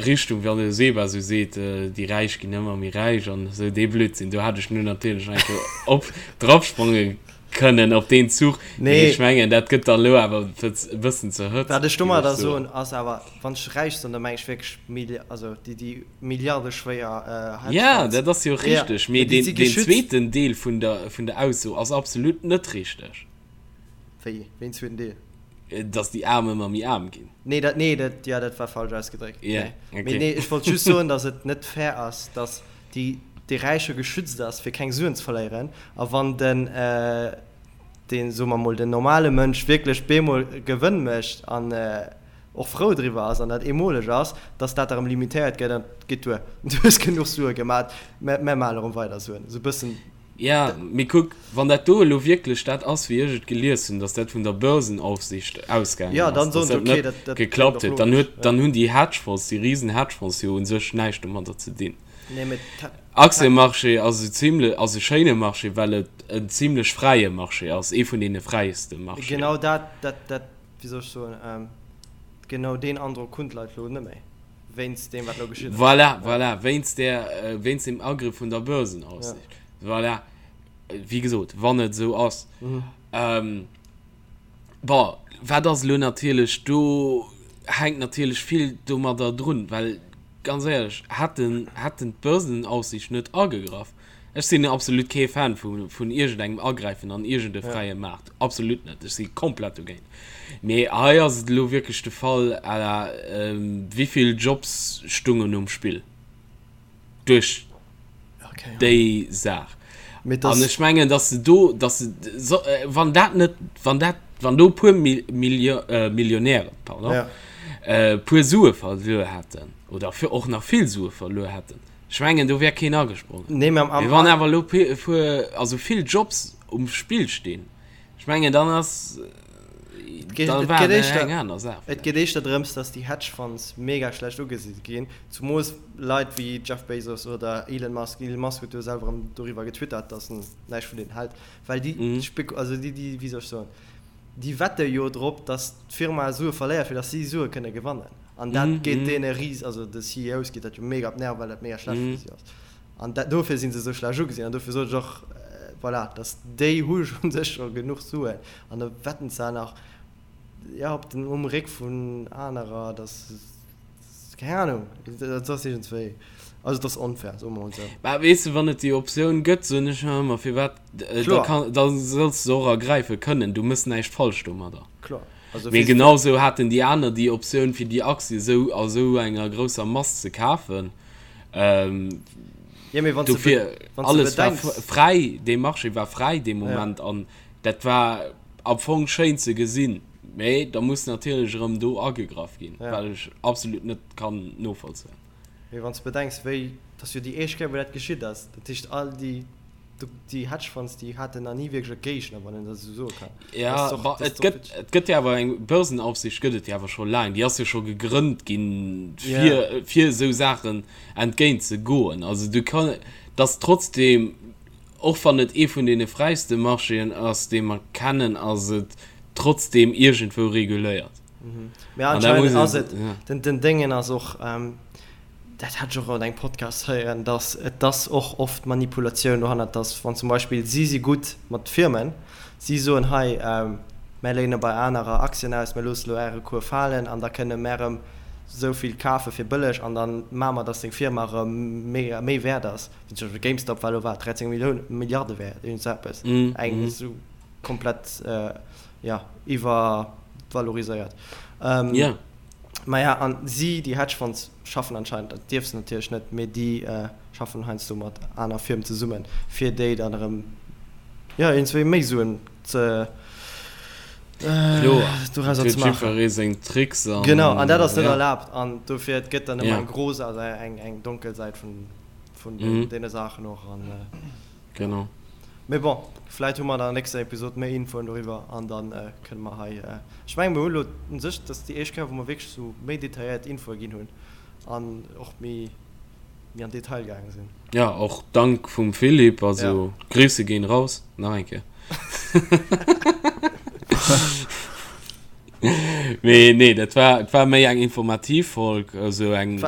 Richtung, wann de Seba sou seet, déi Räich ginn ëmmer méi räich an esou dee Blödsinn, do hat ech nu natierlech nach eng Kéier op dropsprange kënnen op deen Zuch, mee Nee. ech mengen, dat gëtt dann elo awer e bëssen ze Wat hëtzeg, ech géif ech domadder soen. soen, ass awer, wann ech räich soen, da meng ech wierklech Milli-, also déi, déi milliardeschwéier Ja, Hedgefonds. dat ass jo Ja, richteg, mee mee déi deen, si deen geschützt. zweeten Deel vun der, vun der Ausso ass absolut net richteg. Wéi, wéi en zweeten Deel? Dass déi Aarm ëmmer méi aarm ginn. Nee, dat, nee, dat, ja, dat war falsch ausgedréckt. Ja, Nee. okay. Mee nee, ech wollt just soen, dass et net fair ass, dass déi, dee Räiche geschützt ass, fir keng Suen ze verléieren, a wann den, deen, soe mer mol, den normale Mënsch wierklech bemol Gewënn mécht an och frou driwwer ass an dat eemoleg ass, dass dat erëm limitéiert gëtt an et geet duer, du hues genuch Sue gemat, mä mer maachen erëm weider Suen. Esou e bëssen. Ja, mee kuck, wann dat do elo wierklech dat ass, wéi ech et gelies hunn, dass dat vun der Börsenaufsicht ausgaangen Ja, ass, dann dass soen se, dat okay, net dat, dat kléngt geklappt och huet, dann logesch, huet, ja. dann hunn déi Hedgefonds, déi risen Hedgefonds jo u sech näischt domadder ze dinn. Nee, mee ta, ta, Aktiemarché ass e zimle, ass e schéine Marché, well et en zimlech fräie Marché ass, ee vun deene fräiste Marchéen. Genau dat, dat, dat, wéi soll ech soen, genau deen Androck hunn d'Leit elo net méi. Wéinst deem, wat elo geschitt ass. Voilà, voilà, wéinst där, wéinst dem Agrëff vun der Börsenaufsicht. Voilà, wéi gesot, wann et esou ass. Bon, wat ass elo natierlech, do hänkt natierlech vill domadder drun, well ganz éierlech, hätten, hätten d'Börsenaufsicht net agegraff, ech sinn absolut kee Fan vu, vun iergendengem Agräifen an iergende fräie Maart, absolut net, ech si komplett dogéint. Mee hei ass et elo wierklech de Fall à la, wéivill Jobs stungen um Spill duerch déi Saach. An ech mengen, datt se do, datt se, wann dat net, wann dat, wann do e puer Millionären, pardon, e puer Sue verluer hätten oder och nach vill Sue verluer hätten, ech mengen, do wär keen agesprongen. Mee wann awer elo e puer, also vill Jobs um Spill stinn, Ech mengen dann ass dann war et eng aner Saach. Et geet éischter drëms, datt déi Hedge Funds mega schlecht ugesi ginn, zumols Leit wéi Jeff Bezos oder Elon Musk. Elon Musk huet jo selwer erëm doriwwer getwittert, datt en näischt vun deenen hält, well déi Spek also déi déi wéi soll ech soen, déi wette jo drop, datt d'Firma Sue verléiert, fir datt si Sue kënne gewannen. An dat geet deene ris also de CEOs geet dat jo mega op d'Nerven, well dat mega schlecht fir si ass. An dat, dofir si se esou schlecht ugesinn. An dofir sot ech och, voilà, dass déi hu u sech scho genuch Suen an da wetten se nach, jo, op den, um Réck vun anerer, dass, keng Ahnung, dat ass iergendswéi, also et ass onfair, soe mer mol esou. Mä weess de, wann et déi Optioun gëtt, soen ech mer ëmmer, firwat, da kann, da solls de se och ergräife kënnen, du méchs näischt falsch domadder. Kloer. Also Mee genau esou haten déi aner déi Optioun, fir déi Aktie esou a sou enger grousser Mass ze kafen. Ähm, ja, mee wann dofir, du alles war fräi, dee Marché war fräi dee Moment ja. an dat war am Fong schéin ze gesinn. Mee da muss natierlech erëm do agegraff ginn, ja. well ech absolut net kann novollzéien. Mee wann du bedenks, wéi, dat ass jo déi éischt Kéier, wou dat geschitt ass. Dat heescht, all déi Déi Hedge Funds, déi haten nach ni wierklech e Géigner, wann een dat esou soe kann. Ja, et gëtt, et gëtt jo awer eng Börsenaufsicht gëtt et jo awer scho laang. Déi ass jo scho gegrënnt ginn, fir, fir esou Saachen entgéint ze goen. Also du kann, dass trotzdem, och wann et ee vun deene fräiste Marchéen ass, dee mer kennen, ass et trotzdem iergendwou reguléiert. Mä anscheinend ass et, den, den Déngen ass och, dat hat ech och an engem Podcast héieren, dass et ass och oft Manipulatioun dohannert, dass wann zum Beispill si si gutt mat Firmen, si soen hei mär léine bei anerer Aktien aus, mär loosse elo äre Cours falen an da kënne mär erëm esou vill kafe fir bëlleg an da maache mer, dass deng Firma erëm méi méi wäert ass. Wéi zum Beispill GameStop war elo wat 13 Millioune Milliarde wäert, iergend esou eppes, eng esou komplett jo iwwervaloriséiert. Maja, an si, déi Hedgefonds, schaffen anscheinend, dat dierf se natierlech net, mee déi schaffen heiansdo mat aner Firmen zesummen, fir déi dann erëm, jo, iergendswéi méi Suen ze, Kloer, dorauser huet ze maachen. jiddweree seng Tricks an, Genau, an dat ass net ja. erlaabt an dofir, et gëtt dann ëmmer Ja. eng gro, also eng, eng donkel Säit vun, vun deene Saachen och an. Genau. Mee bon, vläit hu mer an der nächster Episod méi Infoen doriwwer an da kënne mer hei, ech mengen, mir hu lo u sech, dat ass déi éischt Kéier, wou mer wierklech esou méi detailléiert Infoe ginn hunn an och méi, méi an Detail gaange sinn. Ja, och dank vum Philippe, also Grüße gehen raus, nach eng Kéier. Mee nee, dat war, et war méi eng informativ Folg, esou eng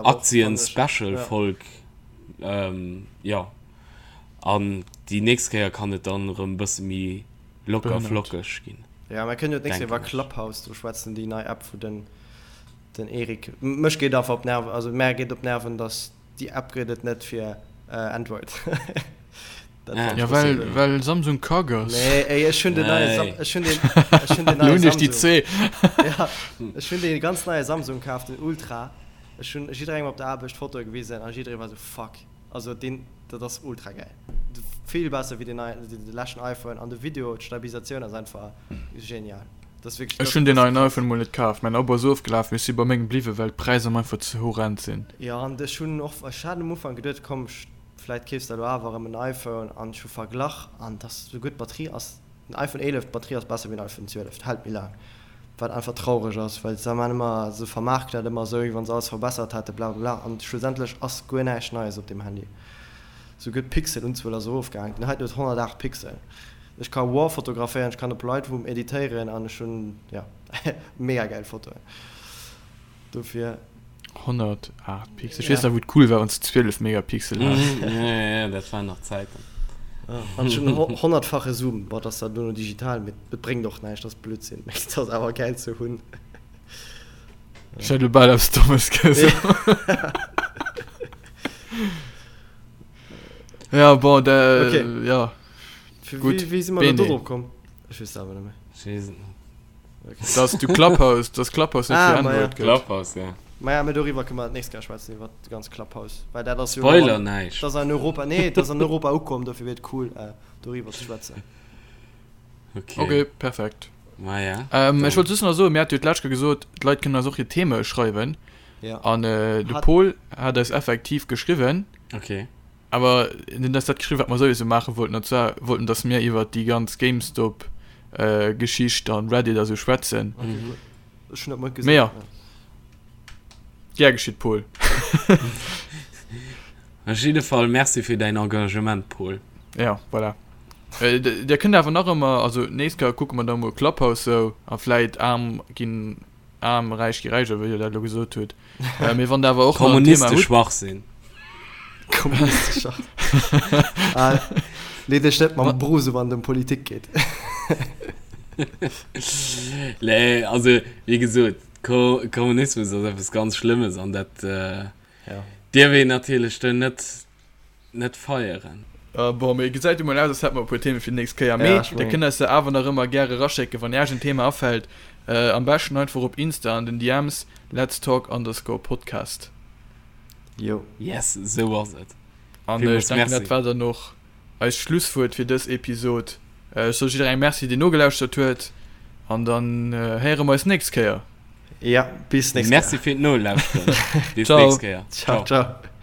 Aktien-Special-Folg. Jo. An déi nächst Kéier kann et dann erëm bësse méi locker flockeg ginn. Jo, mer kënnen jo d'nächst Kéier iwwer Clubhouse do schwätzen, déi nei App wou den den Eric, mech geet einfach op d'Nerven, also mär geet op d'Nerven, dass déi App gëtt et net fir Android. Dat fand ech well well Samsung kack ass. Nee, ey, ech hunn den neie Sam, ech hunn den, ech hunn den neie Samsung. Ja, ech hunn dee ganz neie Samsung kaf, den Ultra. Ech hunn jidderengem op der Aarbecht Fotoe gewisen a jidderee war sou, fuck. Also deen, dat ass ultra gäil. Vill besser wéi den neien, de leschten iPhone an de Video, d'Stabilisatioun ass einfach genial. Dat ass wierklech. Ech hunn deen neien iPhone mol net kaf, mäin Abo ass ofgelaf, mee ech si bei mengem bliwwen, well d'Präisser mer einfach ze horrend sinn. Jo, an ech hunn och, ech hat um Ufank geduet, komm vläit keefs de elo awer erëm en iPhone an ech hu verglach an et ass souguer d'Batterie ass, den iPhone 11, d'Batterie ass besser wéi den iPhone 12, hält méi laang. Wat einfach traureg ass, well se man ëmmer, se vermaarken dat ëmmer esou, wéi wann se alles verbessert hätten, bla bla bla, an schlussendlech ass guer näischt Neies op deem Handy. Souguer d'Pixelunzuel ass erofgaangen, den heiten huet 108 Pixel. Ech ka raw fotograféieren, ech kann op Lightroom editéieren an ech hunn, jo, mega gäil Fotoen. Dofir. 108 Pixel. Ech weess nach, wou et cool war, wann s de 12 Megapixel has. Ja, ja, ja, dat waren nach Zäiten. An ech hunn en honnertfache Zoom. Bon, dat ass zwar duerno digital, mee et bréngt och näischt, dat ass Blödsinn. Mee et ass awer gäil ze hunn. Ech hätt elo bal eppes Dommes gesot. Ja, bon, da, Okay. ja. Gutt, Wéi, wéi si mer elo Bene. do drop komm? Ech weess et awer net méi. Ech weess et net. Dass du Clubhouse, dass Clubhouse net Ah, fir ma ja. Android gëtt. Clubhouse, ja. Maja, mee doriwwer kënne mer d'nächst Kéier schwätzen, iwwer de ganz Clubhouse, well dat ass jo Spoiler näischt. Dat ass an Europa, nee, dat ass an Europa ukomm, dofir wier et cool, doriwwer ze schwätzen. Okay. Okay, perfekt. Maja. Ähm, ech wollt just nach soen, mir hate jo d'lescht Kéier gesot, d'Leit kënnen eis och hir Theme schreiwen. Ja. An de Hat. Paul hat eis effektiv geschriwwen. Okay. Awer en huet eis dat geschriwwen, wat mer souwisou maache wollten, an zwar wollt en, datt mir iwwert déi ganz GameStop Geschicht an Reddit a sou schwätzen. Okay, gutt. Ech hunn dat mol Mee gesinn. jo, gär geschitt, Paul. Op jidde Fall Merci fir däin Engagement, Paul. Ja, voilà. Dir kënnt awer nach ëmmer, also d'nächst Kéier kucke mer da mol Clubhouse sou a vläit aarm ginn Aarm, räich gi räich, oder wéi Dir dat elo gesot hutt. Mee wann Der awer och nach en Thema Kommuniste hutt. Schwachsinn. Kommuniste Schwachsinn. Ah, lee dech net mam Bruce u wann et ëm Politik geet. Nee, also wéi gesot, Ko Kommunismus ass eppes ganz Schlëmmes an dat Ja. dierf een natierlech do net net feieren. Bon, mee gesäit jo mol aus, als hätte mer e puer Themen fir déi nächst Kéier. Mee Ja, ech dir mengen. kënnt eis se awer nach ëmmer gäre eraschécken, wann Iech en Thema afält. Am beschten einfach op Insta an den DMs, let's talk underscore podcast. Jo. Yes, esou ass et. An ech Villmools denken, Merci. dat war dann och eist Schlusswuert fir dës Episod. Ech soe jidderengem Merci, deen nogelauschtert huet. An dann héiere mer eis nächst Kéier. Ja, bis nächst Merci Kéier. fir d'Nolauschteren. Bis Ciao. nächst Kéier. Ciao, Ciao. ciao.